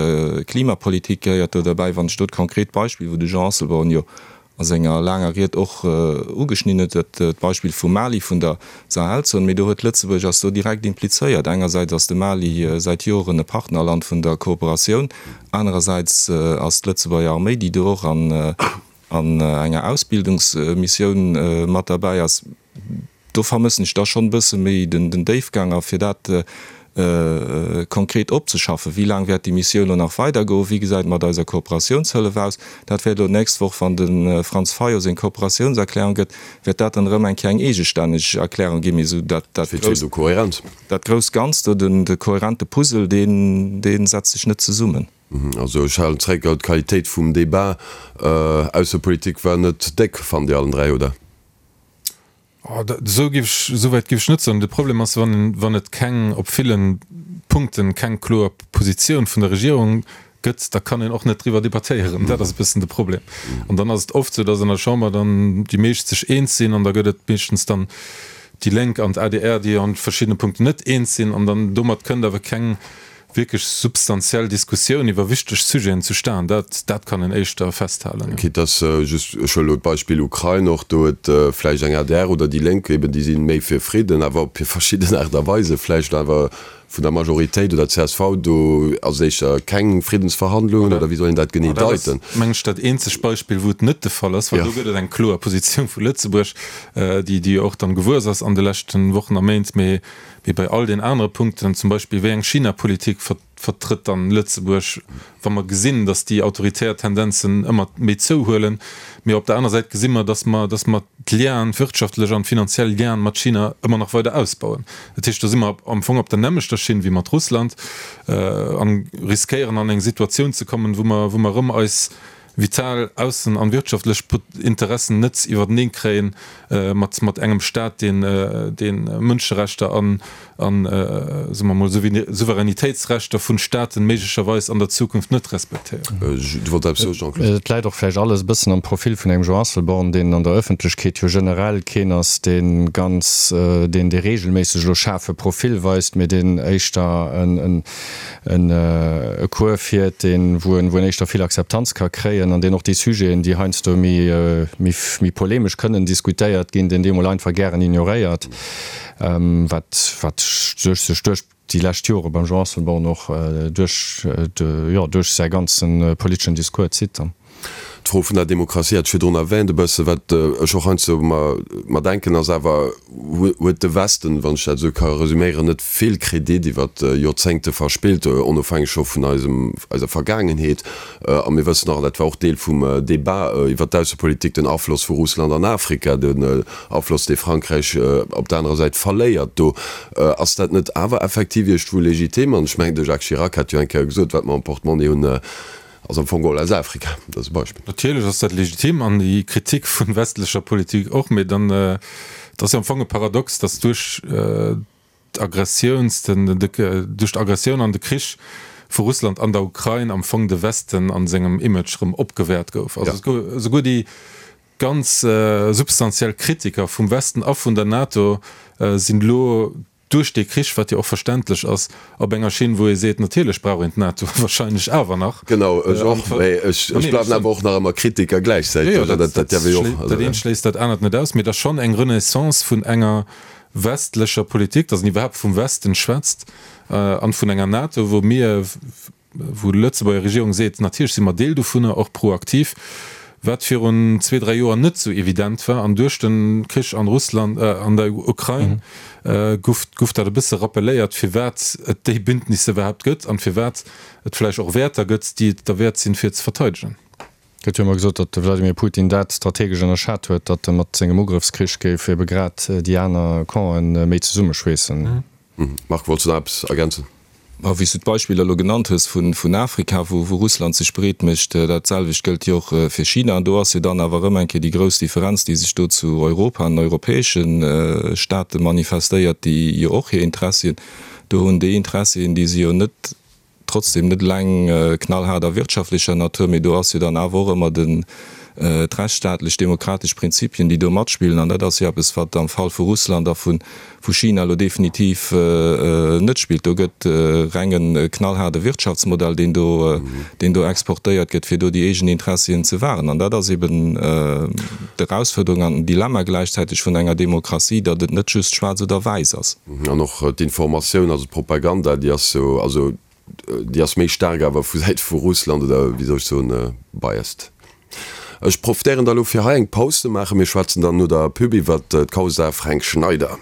Klimapolitik gehéiert do derbäi. Wann ech do d'konkret Beispill, wou de Jean Asselborn jo a senger laanger Ried och ugeschnidden huet, dat d'Beispill vum Mali, vun der Sahelzon, mee do huet Lëtzebuerg ass do direkt implizéiert. Engersäits ass de Mali säit Joren e Partnerland vun der Kooperatioun, anerersäits ass d'Lëtzebuerger Arméi, déi do och an enger Ausbildungsmissioun mat derbäi ass. Do vermëssen ech da schonn e bësse méi den Déifgang a fir dat konkret opzeschaffen. Wéi laang wäert déi Missioun elo nach weidergoen? Wéi gesäit et mat eiser Kooperatiounshëllef aus? Dat wäert elo d'nächst Woch, wann de Franz Fayot seng Kooperatiounserklärung gëtt, wäert dat dann erëm eng Kéier eng eegestänneg Erklärung ginn. Mee esou dat grousst, dat grousst Ganzt do, den de kohärente Puzzle, deen, dee setzt sech net zesummen. Also ech halen zréck, d'Qualitéit vum Débat Aussepolitik war net déck, fannt Dir allen 3, oder? Esou géif ech, esou wäit géif ech net soen. De Problem ass, wann, wann et keng, op ville Punkten keng kloer Positioun vun der Regierung gëtt, da kann een och net driwwer debattéieren. Dat ass e bëssen de Problem. An dann ass et oft esou, datt an der Chamber dann déi meescht sech eens sinn an da gëtt et meeschtens dann déi Lénk an d'ADR, déi an verschiddene Punkten net eens sinn an dann domat kënnt awer keng. Wierklech substantiell Diskussioun iwwer wichteg Sujeten zustan, dat, dat kann een éischter festhalen, jo. Quitte dass just, ech huelen elo d'Beispill Ukrain och, do huet vläicht eng adr oder déi Lénk eben, déi si méi fir Fridden, awer op hir verschidden Aart a Weise vläicht awer vun der Majoritéit oder csv, do ass et éischter keng Friddensverhandlungen oder wéi soll een dat genee deiten? Dat ass, meng ech, dat eenzegt Beispill, wou et net de Fall ass, well do gëtt et eng kloer Positioun vu Lëtzebuerg, déi, déi jo och dann gewuess ass an de leschten Wochen a Méint. Mee Mee bei all den anere Punkten, zum Beispill wéi eng China-Politik vertrëtt dann Lëtzebuerg, wa mer gesinn, datt déi autoritär Tendenzen ëmmer méi zouhuelen, mee op der aner Säit gesi mer, datt mer, datt mer d'Lienen, d'wirtschaftlech an d'finanziell Lienen mat China ëmmer nach weider ausbauen. Dat heescht, do si mer am Fong op der nämmlechter Schinn wéi mat Russland a riskéieren an eng Situatioun ze kommen, wou mer, wou mer erëm eis vital aussen an wirtschaftlech Interessen net iwwerteneen kréien mat mat engem Staat deen deen Mënscherechter an an soe mer mol Souveränitéitsrechter vun Staaten méiglecherweis an der Zukunft net respektéiert. Du wollt eppes soen, Jean-Claude? Et läit och vläicht alles e bëssen am Profil vun engem Jean Asselborn, deen an der Ëffentlechkeet jo generell keen ass, dee ganz, deen dee regelméisseg elo schaarfe Profil weist, mee deen éischter en en e Cours fiert, deen, wou en, wou en éischter vill Akzeptanz ka kréien an deen och déi Sujeten, déi heiansdo méi, méi, méi polemesch kënnen diskutéiert ginn, deen déi emol einfach gären ignoréiert, wat, wat sech sech duerch déi lescht Jore beim Jean Asselborn och duerch de, jo, duerch säi ganze politeschen Discours zitt dann. D'Fro vun der Demokratie hat ech virdrun erwähnt e bëssen. Wat ech och heiansdo mer denken, ass awer, Huet de Westen, wann ech dat esou ka resüméieren, net vill Kredit iwwer Joerzéngte verspillt, onofhängeg scho vun eisem, eiser Vergaangenheet? A mir wëssen och, an dat war och Deel vum Débat iwwer d'Aussepolitik, den Afloss vu Russland an Afrika, den Afloss, dee Frankräich op der anerer Säit verléiert do. Ass dat net awer effektiv iergendwou legitim? An ech mengen, de Jacques Chirac hat jo eng Kéier gesot, wat mer am Portemonnaie hunn, Ass am Fong geholl aus Afrika, dat ass e Beispill. Natierlech ass dat legitim an déi Kritik vun westlecher Politik och, mee dann, et ass jo am Fong e Paradox, datt duerch d'Aggressiouns, den, duerch d'Aggressioun an de Krich vu Russland an der Ukrain am Fong de Westen an sengem Image erëm opgewäert gouf. Also esouguer déi ganz substantiell Kritiker vum Westen a vun der NATO sinn elo duerch dee Krich, wat jo och verständlech ass, op enger Schinn, wou ee seet, natierlech brauch een d'NATO wahrscheinlech awer nach. Genau, ech och, mä ech bleiwen awer och nach ëmmer Kritiker gläichzäiteg. Jo, jo, dat eent schléisst dat anert net aus, mee et ass schonn eng Renaissance vun enger westlecher Politik, datt een iwwerhaapt vum Westen schwätzt an vun enger NATO, wou mir, wou d'Lëtzebuerger Regierung seet, natierlech si mer Deel dovunner, och proaktiv, wat virun zwee, dräi Joer net esou evident war. An duerch de Krich an Russland, an der Ukrain gouf, gouf dat e bësse rappelléiert, firwat et déi Bündnisse iwwerhaapt gëtt an firwat et vläicht och Wäerter gëtt, déi et derwäert sinn, fir ze verteidegen. Et gëtt jo ëmmer gesot, datt de Wladimir Putin dat strategesch ënnerschat huet, datt e mat sengem Ugrëffskrich géif ebe grad déi aner Campen méi zesummeschweessen. Marc, wollts du nach eppes ergänzen? Ma wéi s du d'Beispiller elo genannt hues vun Afrika, wou Russland sech breet mécht, dat selwecht gëllt jo och fir China. An do ass jo dann awer erëm eng Kéier déi grouss Differenz, déi sech do zu Europa an europäesche Staate manifestéiert, déi jo och hir Interessien do hunn. Déi Interessien, déi si jo net Trotzdem net eleng knallhaart a wirtschaftlecher Natur, mee do ass jo dann awer och ëmmer den, d'rechtsstaatlech demokratesch Prinzipien, déi do matspillen. An dat ass jo eppes, wat am Fall vu Russland a vu China elo definitiv net spillt. Do gëtt reng e knallhaarde Wirtschaftsmodell, deen do, deen do exportéiert gëtt, fir do déi eegen Interessien ze wahren. An dat ass eben d'Erausfuerderung an den Dilemma gläichzäiteg vun enger Demokratie, datt et net just schwaarz oder wäiss ass. An och d'Informatioun, also d'Propaganda, déi ass jo, also déi ass méi staark awer vu Säite vu Russland oder wéi soll ech soen, biased. Ech profitéieren da lo fir hei eng Paus ze maachen. Mir schwätzen dann no der Pub iwwert d'Causa Fränk Schneider.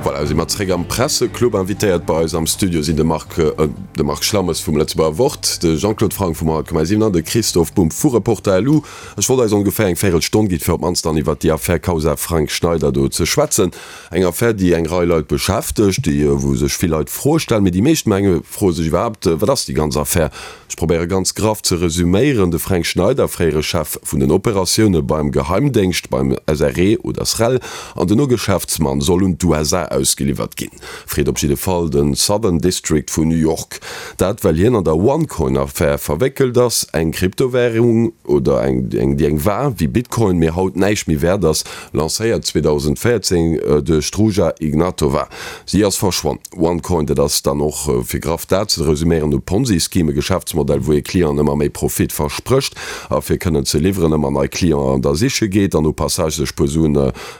Voilà, si mer zréck am Presseclub. Invitéiert bei eis am Studio sinn de Marc, de Marc Schlammes vum Lëtzebuerger Wort, de Jean-Claude Franck vum 100,7 an de Christophe Bumb vu Reporter.lu. Ech wollt eis ongeféier eng Véirelstonn ginn, fir op d'mannst dann iwwert déi Affär Causa Frank Schneider do ze schwätzen. Eng Affär, déi eng Rei Leit beschäftegt, déi, wou sech vill Leit Froe stellen, mee déi meescht, menge, froe sech iwwerhaapt, Wat ass déi ganz Affär? Ech probéiere ganz graff ze resüméieren, De Fränk Schneider, fréiere Chef vun den Operatioune beim Geheimdéngscht, beim SRE oder SREL, an dono Geschäftsmann, soll un d'USA. ausgeliwwert ginn. Freet op jidde Fall de Southern District vun New York. Dat well hien an der OneCoin-Affär verwéckelt ass, eng Kryptowärung oder eng déi eng war wéi Bitcoin, mee haut näischt méi wäert ass, lancéiert 2014 duerch d'Ruja Ignatova. Si ass verschwonn. OneCoin, dat ass dann och, fir graff dat ze resuméieren, e Ponzi-Scheme, e Geschäftsmodell, wou ee Clienten ëmmer méi Profit versprécht a fir kënnen ze liwweren ëmmer nei Clienten da siche geet an au passage sech puer Suen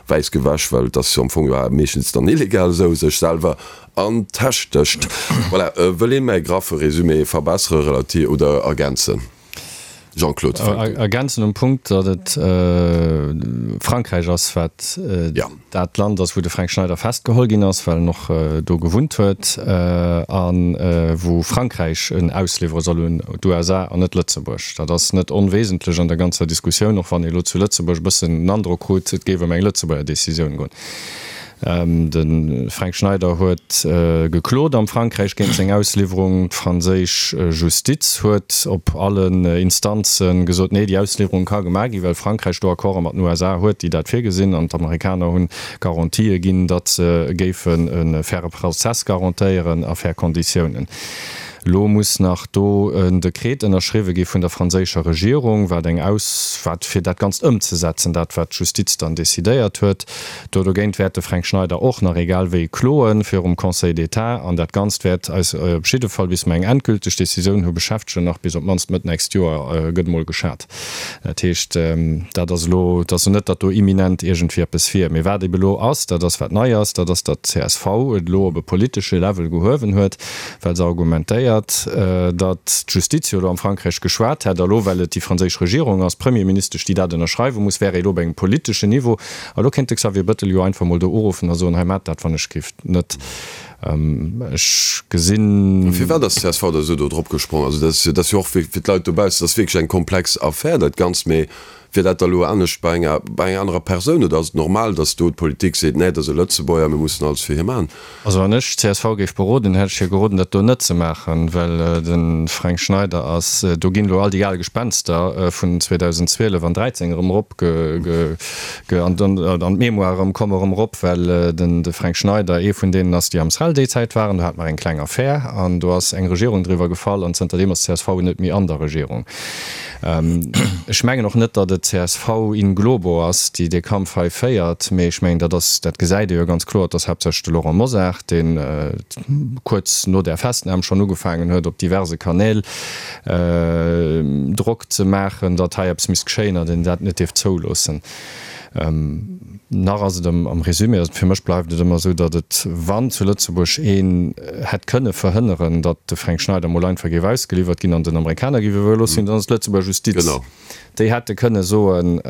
wäiss gewäsch, well et ass jo am Fong jo meeschtens dann illegal esou, sech selwer an d'Täsch stécht. Voilà, wëll een mäi graffe Résumé verbessere relativ oder ergänzen? Jean-Claude, fänk du. Ergänzen um Punkt, datt et Frankräich ass, wat dat Land ass, wou de Fränk Schneider festgeholl ginn ass, well en och do gewunnt huet, a wou Frankräich en ausliwwere soll un d'USA an net Lëtzebuerg. Dat ass net onwesentlech an der ganzer Diskussioun, och wann ee elo zu Lëtzebuerg e bëssen den Androck krut, et géif ëm eng Lëtzebuerger Decisioun goen. De Fränk Schneider huet geklot am Frankräich géint seng Ausliwwerung. D'franséisch Justiz huet op allen Instanze gesot, nee, déi Ausliwwerung ka gemaach ginn, well Frankräich do Accorde mat den USA huet, déi dat virgesinn. An d'Amerikaner hunn Garantië ginn, datt se géifen e faire Prozess garantéieren a fair Konditiounen. Elo muss nach do en Dekret ënnerschriwwe gi vun der franséischer Regierung, wat eng Aus, wat fir dat Ganzt ëmzesetzen, dat wat d'Justiz dann decidéiert huet. Do dogéint wäert de Fränk Schneider och nach egal wéi kloen virum Conseil d'État an dat Ganzt wäert eis op jidde Fall, bis mer eng endgülteg Décisioun hu beschäftegen, nach bis op d'mannst Mëtt nächst Joer, gëtt emol geschat. Dat heescht, dat ass elo, et ass net, datt do imminent iergendwéi eppes wier. Mee wat ebe elo ass, dat ass wat nei ass, dat ass, datt d'CSV et elo op e politesche Level gehuewen huet, well se argumentéiert, datt d'Justiz jo elo am Frankräich geschwat hätt a lo, well et déi franséisch Regierung ass, d'Premierministesch, déi dat ënnerschreiwe muss, wär ee elo op engem politeschen Niveau. A lo kéint de Xavier Bettel jo einfach mol do uruffen a soen, hei maacht dat wann ech giff net. Ech gesinn. Firwat ass d'CSV da esou do drop gesprong? Also dat ass jo och fir d'Leit dobaussen, dat ass wierklech eng komplex Affär dat Ganzt. Mee wier dat da elo anescht bei enger bei enger anerer Persoun oder ass et normal, datt do d'Politik seet, nee, dat ass e Lëtzebuerger, mir mussen alles fir hie maachen? Also wann ech d'CSV géif beroden, hätt ech hir geroden, dat do net ze maachen, well de Fränk Schneider ass, do ginn elo all déi al Gespenster vun 2012 an 13 erëm erop ge, an d'Mémoire erëm, komme erëm erop, well den de Fränk Schneider ee vun deenen ass, déi am SREL déi Zäit waren. Do hate mer eng kleng Affär an do ass eng Regierung driwwer gefall an zënterdeem ass d'CSV net méi an der Regierung. Ech mengen och net, datt et csv in globo ass, déi dee Kampf hei féiert, mee ech mengen, dat ass, dat gesäit ee jo ganz kloer, et ass haaptsächlech de Laurent Mosar, dee kuerz no där Festnam schonn ugefaangen huet, op diverse Kanäl Drock ze maachen, datt hei eppes misst geschéien an een dat net dierft zouloossen. Nach ass et am Résumé, also fir mech bleift et ëmmer esou, datt et, wann zu Lëtzebuerg een hätt kënne verhënneren, datt de Fränk Schneider mol einfach géif ausgeliwwert ginn an den Amerikaner géif iwwerlooss ginn, dann ass et d'Lëtzebuerger Justiz. Déi hätte kënne soen,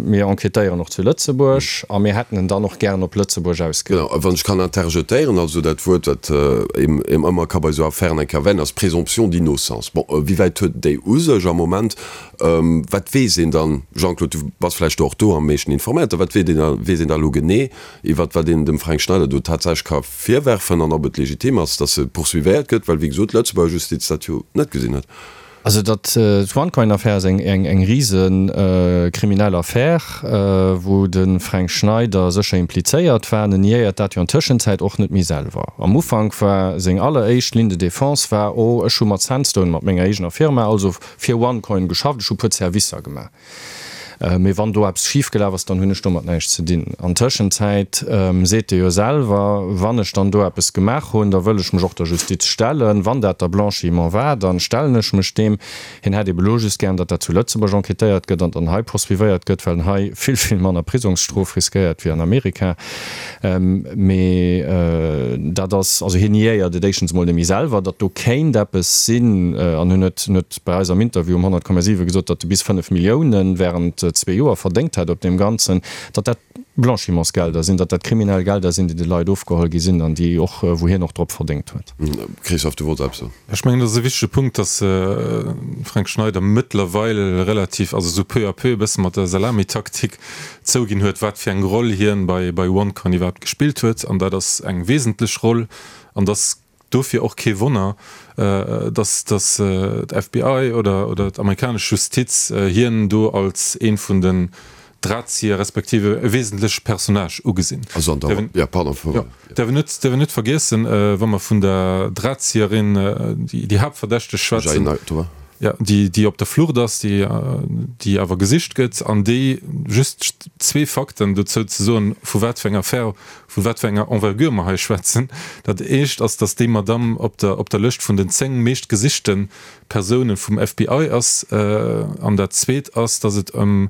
mir enquêtéieren och zu Lëtzebuerg a mir hätten en dann och gären op Lëtzebuerg ausgeliwwert. Genau, a wann ech kann interjetéieren, also dat Wuert, wat een ëmmer ka bei esou Affären eng Kéier erwänen, ass Présomption d'innocence. Bon, wéi wäit huet déi u sech am Moment? Wat weess een dann, Jean-Claude, du bass vläicht do och do am meeschten informéiert, wat weess een, weess een da elo genee iwwert wat een dem Fränk Schneider do tatsächlech ka virwerfen an ob et legitim ass, datt e poursuivéiert gëtt, well wéi gesot d'Lëtzebuerger Justiz dat jo net gesinn huet. Also datt d'OneCoin-Affär ass eng eng rise kriminell Affär, wou de Fränk Schneider sécher implizéiert war. En niéiert dat jo an Tëschenzäit och net méi selwer. Am Ufank war seng alleréischt Ligne de défense war, oh ech hu mat Sandstone, mat menger eegener Firma, also fir OneCoin geschafft, ech hu puer Servicer gemaach, mee wann do eppes schif gelaf ass, dann hunn ech domat näischt ze dinn. An Tëschenzäit seet e jo selwer, wann ech dann do eppes gemaach hunn, da wëll ech mech och der Justiz stellen, wann dat da Blanchiment war, dann stellen ech mech deem. Hien hätt ebe lo just gären, datt dat zu Lëtzebuerg enquêtéiert gëtt an dann hei poursuivéiert gëtt, well en hei vill, vill manner Prisongsstrof riskéiert wéi an Amerika. Mee dat ass, also hien niéiert et éischtens emol net méi selwer, datt do kéint eppes sinn. An hien huet, hien huet bei eis am Interview um 100,7 gesot, datt e bis 5 Millioune während zwee Joer verdéngt hätt op deem Ganzen, datt dat Blanchimentsgelder sinn, datt dat kriminell Gelder sinn, déi de Leit ofgeholl gi sinn an déi och, wou hien och drop verdéngt huet. Christophe, du wollts eppes soen? Ech mengen, dat ass e wichtege Punkt, datt de Fränk Schneider mëttlerweil relativ, also esou peu à peu e bësse mat der Salamitaktik zouginn huet, wat fir eng Roll hien bei bei OneCoin iwwerhaapt gespillt huet. An dat ass eng wesentlech Roll. An et ass dofir och kee Wonner, datt datt d'FBI oder oder d'amerikanesch Justiz hien do als ee vun den. Drahtzieher respektiv e wesentleche Personnage ugesinn. Also an der, ja, pardon, ja. Däerf een net, däerf een net vergiessen, wa mer vun der Drahtzieherin, déi, déi Haaptverdächteg schwätzen, ja, déi, déi op der Flucht ass, déi, déi awer gesicht gëtt an déi, just zwee Fakten dozou ze soen, vu wat fir enger Affär, vu wat fir enger Envergure mer hei schwätzen. Dat éischt ass, datt déi Madamm op der, op der Lëscht vun den 10 meeschtgesichte Persounen vum FBI ass. An dat zweet ass, datt et ëm,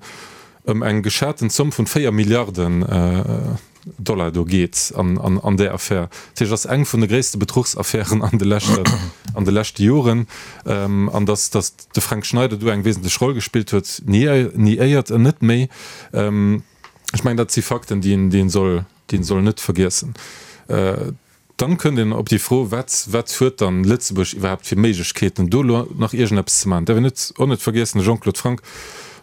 ëm eng geschaten Zomm vun 4 Milliarden Dollar do geet an där Affär. Dat heescht, et ass eng vun de gréisste Bedruchsaffären an de leschten, an de leschte Joren. An datt, datt de Fränk Schneider do eng wesentlech Roll gespillt huet, niéiert en net méi. Ech mengen, dat si Fakten, déi een, déi een soll, déi een soll net vergiessen. Dann kënnt een op déi Fro, Wat, wat huet dann Lëtzebuerg iwwerhaapt fir Méiglechkeeten, do elo nach iergendeppes ze maachen? Däerf een net, och net vergiessen, de Jean-Claude Franck,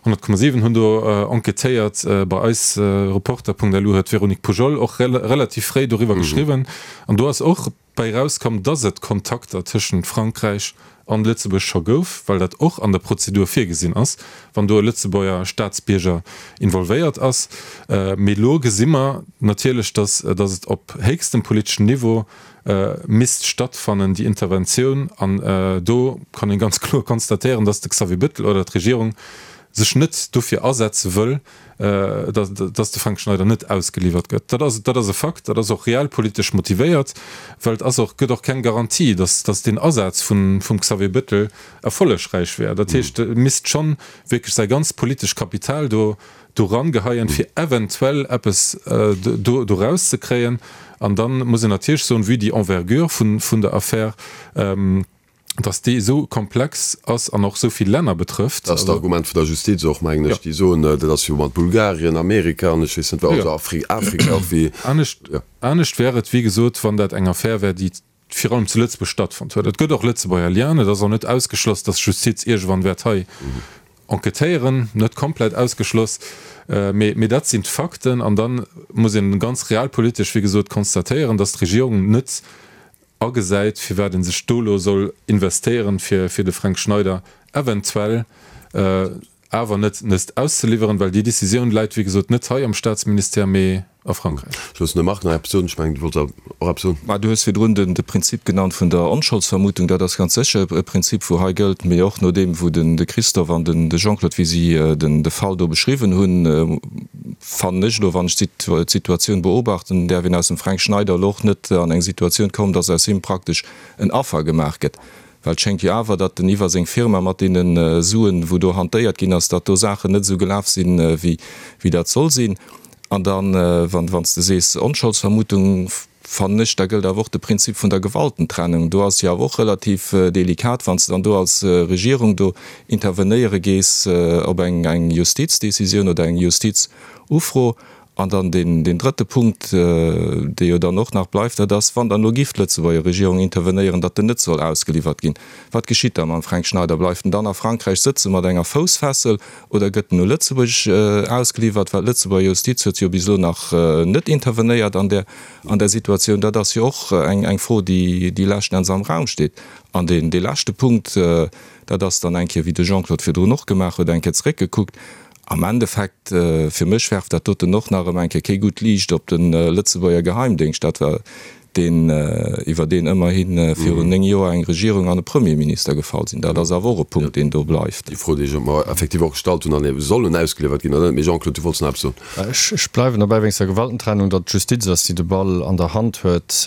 100,7 hunn do enquêtéiert bei eis, Reporter.lu huet d'Véronique Poujol och relativ fréi doriwwer geschriwwen. An do ass och bäi erauskomm, dass et Kontakter tëschent Frankräich an Lëtzebuerg scho gouf, well dat och an der Prozedur virgesinn ass, wann do e Lëtzebuerger Staatsbierger involvéiert ass. Mee elo gesi mer natierlech, dass et op héchstem politeschen Niveau misst stattfannen, déi Interventioun. An do kann ee ganz kloer konstatéieren, dass de Xavier Bettel oder d'Regierung sech net dofir asetze wëll, dass de Fränk Schneider net ausgeliwwert gëtt. Dat ass, dat ass e Fakt, dat ass och realpolitesch motivéiert, well et ass och, gëtt och keng Garantie, dass, dass deen Asaz vun, vum Xavier Bettel erfollegräich wär. Dat heescht, e misst schonn wierklech säi ganzt politesch Kapital do, do rangeheien, fir eventuell eppes do, do rauszekréien. An da muss een natierlech soen, vue déi Envergure vun, vun der Affär, dass déi esou komplex ass an och esou vill Länner betrëfft. Dat ass d'Argument vun der Justiz och, mengen ech. Déi soen, dat ass jo mat Bulgarien, Amerika an ech weess net wat, also Afrika och wéi. Anescht, anescht wär et, wéi gesot, wann dat eng Affär wär, déi virun allem zu Lëtzebuerg stattfonnt huet. Et gëtt och Lëtzebuerger Lienen. Et ass och net ausgeschloss, dass d'Justiz iergendwann wäert hei enquêtéieren. Net komplett ausgeschloss, mee, mee dat sinn d'Fakten. An da muss een ganz realpolitesch, wéi gesot, constatéieren, dass d'Regierung net agesäit, firwat ee sech do elo soll investéieren, fir fir de Fränk Schneider eventuell awer net nest auszeliwweren, well déi Décisioun läit, wéi gesot, net hei am Staatsministère, mee a Frankräich. Ech loossen dem Marc nach eppes soen. Ech mengen, du wollts och eppes soen. Mä du hues virdrun de Prinzip genannt vun der Onscholdsvermutung. Dat ass ganz sécher e Prinzip, wou hei gëllt, mee och nodeem wou de Christophe an de Jean-Claude, wéi si de Fall do beschriwwen hunn, fannen ech elo, wann ech d'Situatioun beobachten, däerf een aus dem Fränk Schneider elo och net an eng Situatioun kommen, datt aus him praktesch en Affer gemaach gëtt. Well et schéngt jo awer, datt en iwwer seng Firma mat deene Suen, wou do hantéiert ginn ass, datt do Saachen net esou gelaf sinn, wéi dat soll sinn. An dann, wann s de sees Onscholdsvermutung, fannen ech, da gëllt awer och de Prinzip vun der Gewaltentrennung. Do ass jo awer och relativ delikat, wann s de dann do als Regierung do intervenéiere gees op eng Justizdécisioun oder eng Justizufro. An dann deen drëtte Punkt, dee jo dann och nach bleift, dat ass, wann dann elo giff d'Lëtzebuerger Regierung intervenéieren, datt en net soll ausgeliwwert ginn, wat geschitt da mam Fränk Schneider? Bleift en dann a Frankräich sëtze mat enger Foussfessel Oder gëtt en u Lëtzebuerg ausgeliwwert? Well d'Lëtzebuerger Justiz huet jo bis elo nach net intervenéiert an där, an där Situatioun. Dat ass jo och eng, eng Fro, déi, déi leschten Enns am Raum steet. An deen, dee leschte Punkt, dat ass dann eng Kéier, wéi de Jean-Claude virdrun och gemaach huet, eng Kéier zeréckgekuckt. Am Endeffekt, fir mech werft dat doten och nach erëm eng Kéier kee gutt Liicht op de Lëtzebuerger Geheimdéngscht. Dat war deen, iwwer deen ëmmerhi virun 9 Joer eng Regierung an e Premierminister gefall sinn. Dat ass awer och e Punkt, deen do bleift. Déi Fro, déi ech mer effektiv och gestallt hunn, an ebe soll en ausgeliwwert ginn oder net? Mee Jean-Claude, du wollts nach eppes soen. Ech bleiwen dobäi wéinst der Gewaltentrennung, datt d'Justiz ass, déi de Ball an der Hand huet,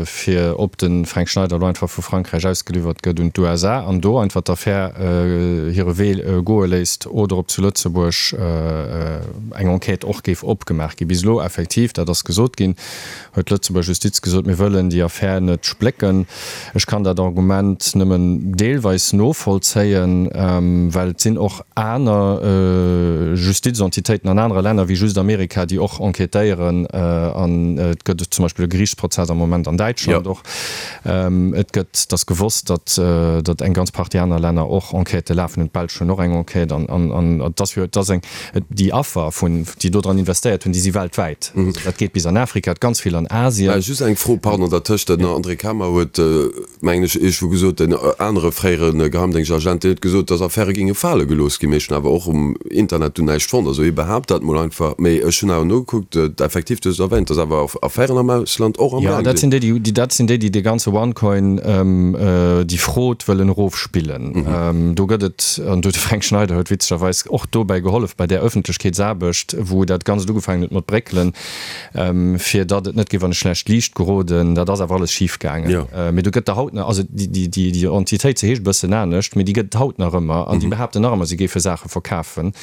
fir ob de Fränk Schneider elo einfach vu Frankräich ausgeliwwert gëtt un d'USA an do einfach d'Affär hire Wee goe léisst oder ob zu Lëtzebuerg eng Enquête och géif opgemaach ginn. Bis elo effektiv, dat ass gesot ginn, huet d'Lëtzebuerger Justiz gesot, mir wëllen déi Affär net splécken. Ech kann dat Argument nëmmen deelweis novollzéien, well et sinn och aner Justizentitéiten an anere Länner wéi just Amerika, déi och enquêtéieren. An et gëtt zum Beispill e Geriichtsprozess am Moment an Däitschland och. Et gëtt, et ass gewosst, datt datt eng ganz Partie aner Länner och Enquêtë lafen hunn. D'Belsch hunn och eng Enquête. An et ass jo, et ass eng. Déi Affer, vun, déi do dran investéiert hunn, déi si weltwäit. Also dat geet bis an Afrika, ganz vill an Asien. Just eng Fro. Fro, pardon, dertëscht, den André Kamer huet, mengen ech, iergendwou gesot, en anere fréiere Geheimdéngschtagent, deen huet gesot, datt Affäre géinge fale gelooss ginn. Mee ech hunn awer och um Internet do näischt fonnt. Also hie behaapt dat mol einfach. Mee ech hunn awer nogekuckt, effektiv, du hues et erwähnt, datt awer Affären am Ausland och am Gaang sinn. Jo, dat sinn déi, déi, dat sinn déi, déi dee ganze OneCoin, déi Fraude wëllen erofspillen. Do gëtt et, an do de Fränk Schneider huet witzegerweis och dobäi gehollef bei där Ëffentlechkeetsaarbecht, wou dat Ganzt ugefaangen huet mat bréckelen, fir datt et net géif an e schlecht Liicht geroden. Dat ass awer alles schif gaangen. Mee do gëtt der haut nach, also déi Entitéit, se heescht e bëssen anescht, mee déi gëtt et haut nach ëmmer an déi behaapten nach ëmmer, si géife Saache verkafen.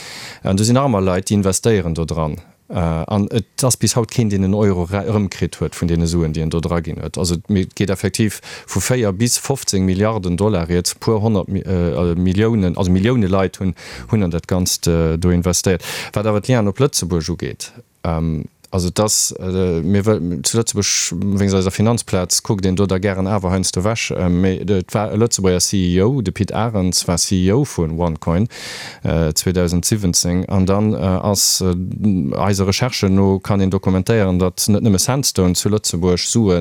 An do sinn nach ëmmer Leit, déi investéieren do dran. An et ass bis haut keen, deen en Euro erëmkritt huet vun deene Suen, déi en do draginn huet. Also et geet effektiv vu 4 bis 15 Milliarden Dollar rieds. E puer 100 Milliounen, also Millioune Leit hunn an dat Ganzt do investéiert. Wat awer d'Lienen op Lëtzebuerg ugeet, Also et ass, mir wëll, zu Lëtzebuerg, wéinst eiser Finanzplaz, kuckt een do da gären awer heiansdo ewech, mee et war e Lëtzebuerger CEO, de Pit Arens war CEO vu OneCoin 2017, an dann ass, eise Recherchen no kann een dokumentéieren, datt net nëmme Sandstone zu Lëtzebuerg Sue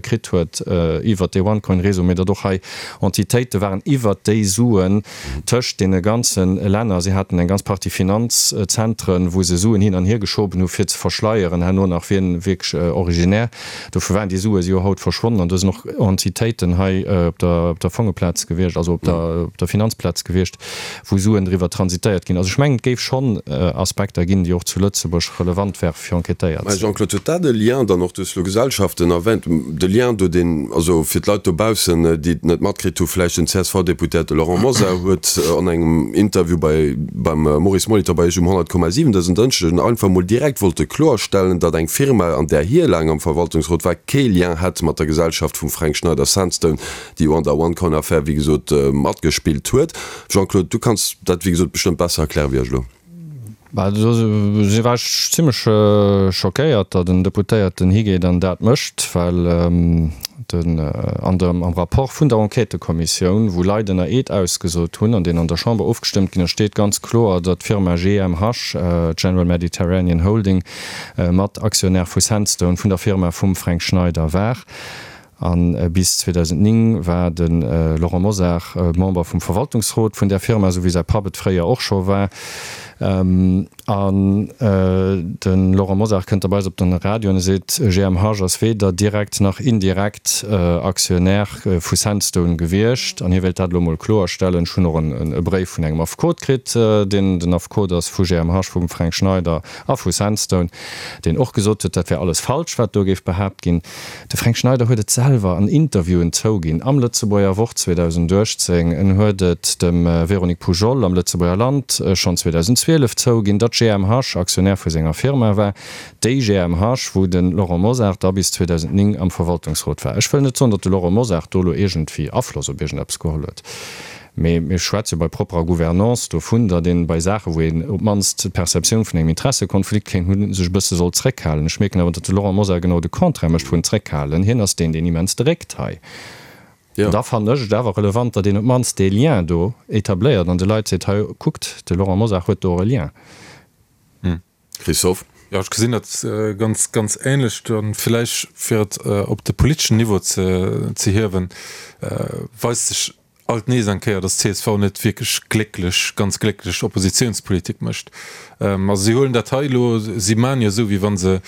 kritt huet iwwert dee OneCoin-Réseau, mee datt och hei Entitéite waren iwwert déi Suen, Tëscht deene ganze Länner. Si haten eng ganz Partie Finanzzentren, wou se Suen hin an hier geschoben hu fir ze verschleieren herno nach, wien wierklech originaire dovu war. Déi Sue si jo haut verschwonnen an do sinn och Entitéiten hei op der op der Fongeplaz gewiescht, also op der op der Finanzplaz gewiescht, wou Suen driwwer transitéiert ginn. Also ech mengen, et géif schonn Aspekter ginn, déi och zu Lëtzebuerg relevant wäre fir enquêtéiert Mä ze ginn. Jean-Claude, huet dat e Lien dann och, du hues elo Gesellschaften erwähnt, de Lien do, deen, also fir d'Leit dobaussen, déi et net matkritt hu vläicht, den CSV-Deputéierte Laurent Mosar huet an engem Interview bei, beim Maurice Molitor bei Iech um 100,7 dësen Dënschdeg einfach mol direkt wollte kloerstellen, datt eng Firma, an där hie laang am Verwaltungsrot war, kee Lien hätt mat der Gesellschaft vum Fränk Schneider, Sandstone, déi jo an der OneCoin-Affär, wéi gesot, matgespillt huet. Jean-Claude, du kanns dat, wéi gesot, bestëmmt besser erkläre wéi ech elo. Bah, do si war ech zimlech schockéiert, datt en Deputéierten higeet an dat mécht, well den an dem am Rapport vun der Enquêtëkommissioun, wou Leit ënner Eed ausgesot hunn an deen an der Chamber ofgestëmmt ginn ass, steet ganz kloer, datt d'Firma GMH, General Mediterranean Holding, mat Aktionär vu Sandstone, vun der Firma vum Fränk Schneider war. A bis 2009 war de Laurent Mosar Member vum Verwaltungsrot vun där Firma, esou wéi säi Papp et fréier och scho war. An de Laurent Mosar kënnt da bei eis op den Radio an e seet, GMH ass weder direkt nach indirekt Aktionär vu Sandstone gewiescht. An hie wéilt dat elo mol kloerstellen. Ech hunn och e Bréif vun engem Affekot kritt, deen den Affekot ass vu GMH, vum Fränk Schneider a vu Sandstone, deen och gesot huet, dat wär alles falsch, wat do géif behaapt ginn. De Fränk Schneider huet et selwer an Interviewen zouginn, am Lëtzebuerger Wort 2018, en huet et dem Véronique Poujol am Lëtzebuerger Land schonn 2012 zouginn, datt GMH Aktionär vu senger Firma war, déi GMH, wou de Laurent Mosar da bis 2009 am Verwaltungsrot war. Ech wëll net soen, datt de Laurent Mosar do elo iergendwéi Afloss op iergendeppes geholl huet. Mee mir schwätze bei propperer Gouvernance dovun, datt een bei Saachen, wou een op d'mannst d'Perceptioun vun engem Interessekonflikt kéint hunn, sech e bësse soll zréckhalen. Ech mierken awer, datt de Laurent Mosar genau de Contraire mécht vun zréckhalen. Hien ass deen, deen immens dréckt hei. An da fannen ech et awer relevant, datt een op d'mannst dee Lien do etabléiert an de Leit seet, hei kuckt, de Laurent Mosar huet do och e Lien. Christophe? Jo, ech gesinn dat ganz, ganz ähnlech. Dann villäicht, fir et op de politeschen Niveau ze, ze hiewen, weist sech alt nees eng Kéier, datt csv net wierklech glécklech, ganz glécklech Oppositionspolitik mécht. Also si huelen dat hei elo, si maachen jo esou, wéi wa se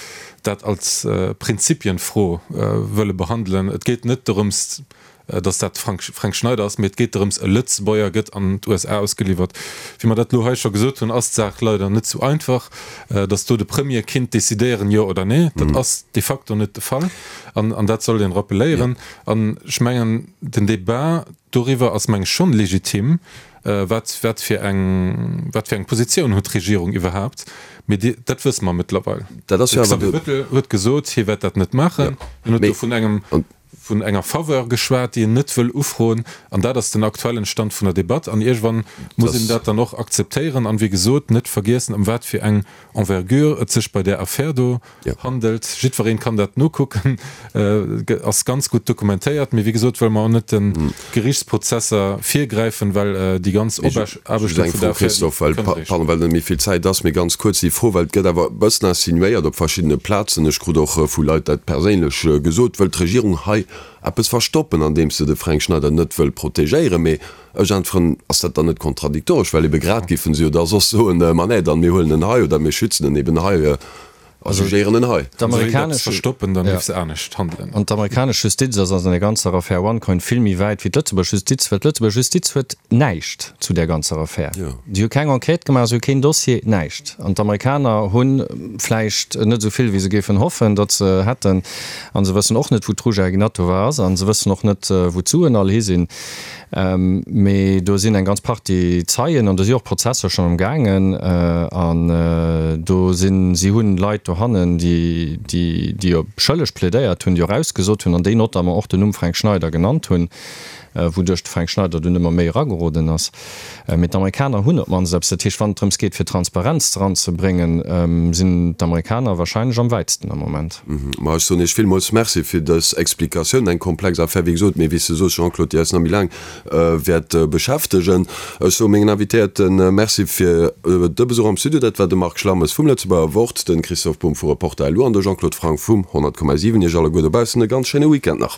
dat als Prinzipienfro wëlle behandelen. Et geet net dorëms, datt dat de Fränk Schneider ass, mee et geet drëms, e Lëtzebuerger gëtt an d'USA ausgeliwwert. Wéi mer dat elo hei scho gesot hunn, ass d'Saach leider net sou einfach, datt do de Premier kinnt decidéieren, jo oder nee. Dat ass de facto net de Fall an dat sollt een rappeléieren. An ech mengen, den Debat doriwwer ass, meng ech, schonn legitim, wat, wat fir eng, wat fir eng Positioun huet d'Regierung iwwerhaapt. Mee déi, dat wësse mer mëttlerweil. Dat ass jo awer de. De Xavier Bettel huet gesot, hie wäert dat net maachen. En huet do vun engem. Vun enger Faveur geschwat, déi en net wëll ufroen. An dat ass den aktuellen Stand vun der Debatt. An iergendwann muss een dat dann och akzeptéieren. An, wéi gesot, net vergiessen, ëm wat fir eng Envergure et sech bei där Affär do handelt. Jiddweree kann dat nokucken, ass ganz gutt dokumentéiert. Mee, wéi gesot, wëlle mer och net de Gerichtsprozesser virgräifen, well déi ganz Just eng Fro, Christophe, well, pardon, well net méi vill Zäit ass, mee ganz kuerz déi Fro, well et gëtt awer e bëssen insinuéiert op verschiddene Plazen, ech krut och vu Leit dat perséinlech gesot, wëllt d'Regierung hei eppes verstoppen, andeems se de Fränk Schneider net wëll protegéieren? Mee ech äntweren, ass dat dann net kontradiktoresch, well ebe grad géife se jo da soss soen, ma nee, dann mir huelen en hei oder mir schützen en eben hei. A jugéieren en hei. D'Amerikanesch verstoppen, dann géif se anescht handelen. An d'amerikanesch Justiz ass an der ganzer Affär OneCoin vill méi wäit wéi d'Lëtzebuerg Justiz, well d'Lëtzebuerg Justiz huet näischt zu där ganzer Affär. Si hu keng Enquête gemaach, si hu keen Dossier, näischt. An d'Amerikaner hu vläicht net esou vill, wéi se géifen hoffen, datt se hätten. A se wëssen och net, wou d'Ruja Ignatova ass. A se wëssen och net, wou d'Suen all hi sinn. Mee do sinn eng ganz Partie Zeien an do si och Prozesser schonn am gaangen. An do sinn, si hunn Leit dohannen, déi, déi op schëlleg plädéiert hunn, déi och ausgesot hunn an déi notamment och den Numm Fränk Schneider genannt hunn, wouduerch de Fränk Schneider dunn ëmmer méi erageroden ass. Mee d'Amerikaner hunn op d'mannst eppes. Dat heescht, wann et drëms geet, fir Transparenz eranzebréngen, sinn d'Amerikaner wahrscheinlech am wäitsten am Moment. Ma ech soen Iech villmools Merci fir dës Explikatioun. Eng komplex Affär, wéi gesot, mee wéi s de soos, Jean-Claude, déi eis nach méi laang wäert beschäftegen. Ech soe mengen Invitéierte Merci fir de Besuch am Studio. Dat war de Marc Schlammes vum Lëtzebuerger Wort, de Christoph Bumb vu Reporter LU an de Jean-Claude Franck vum 100,7. Iech alleguer dobaussen e ganz schéine Weekend nach.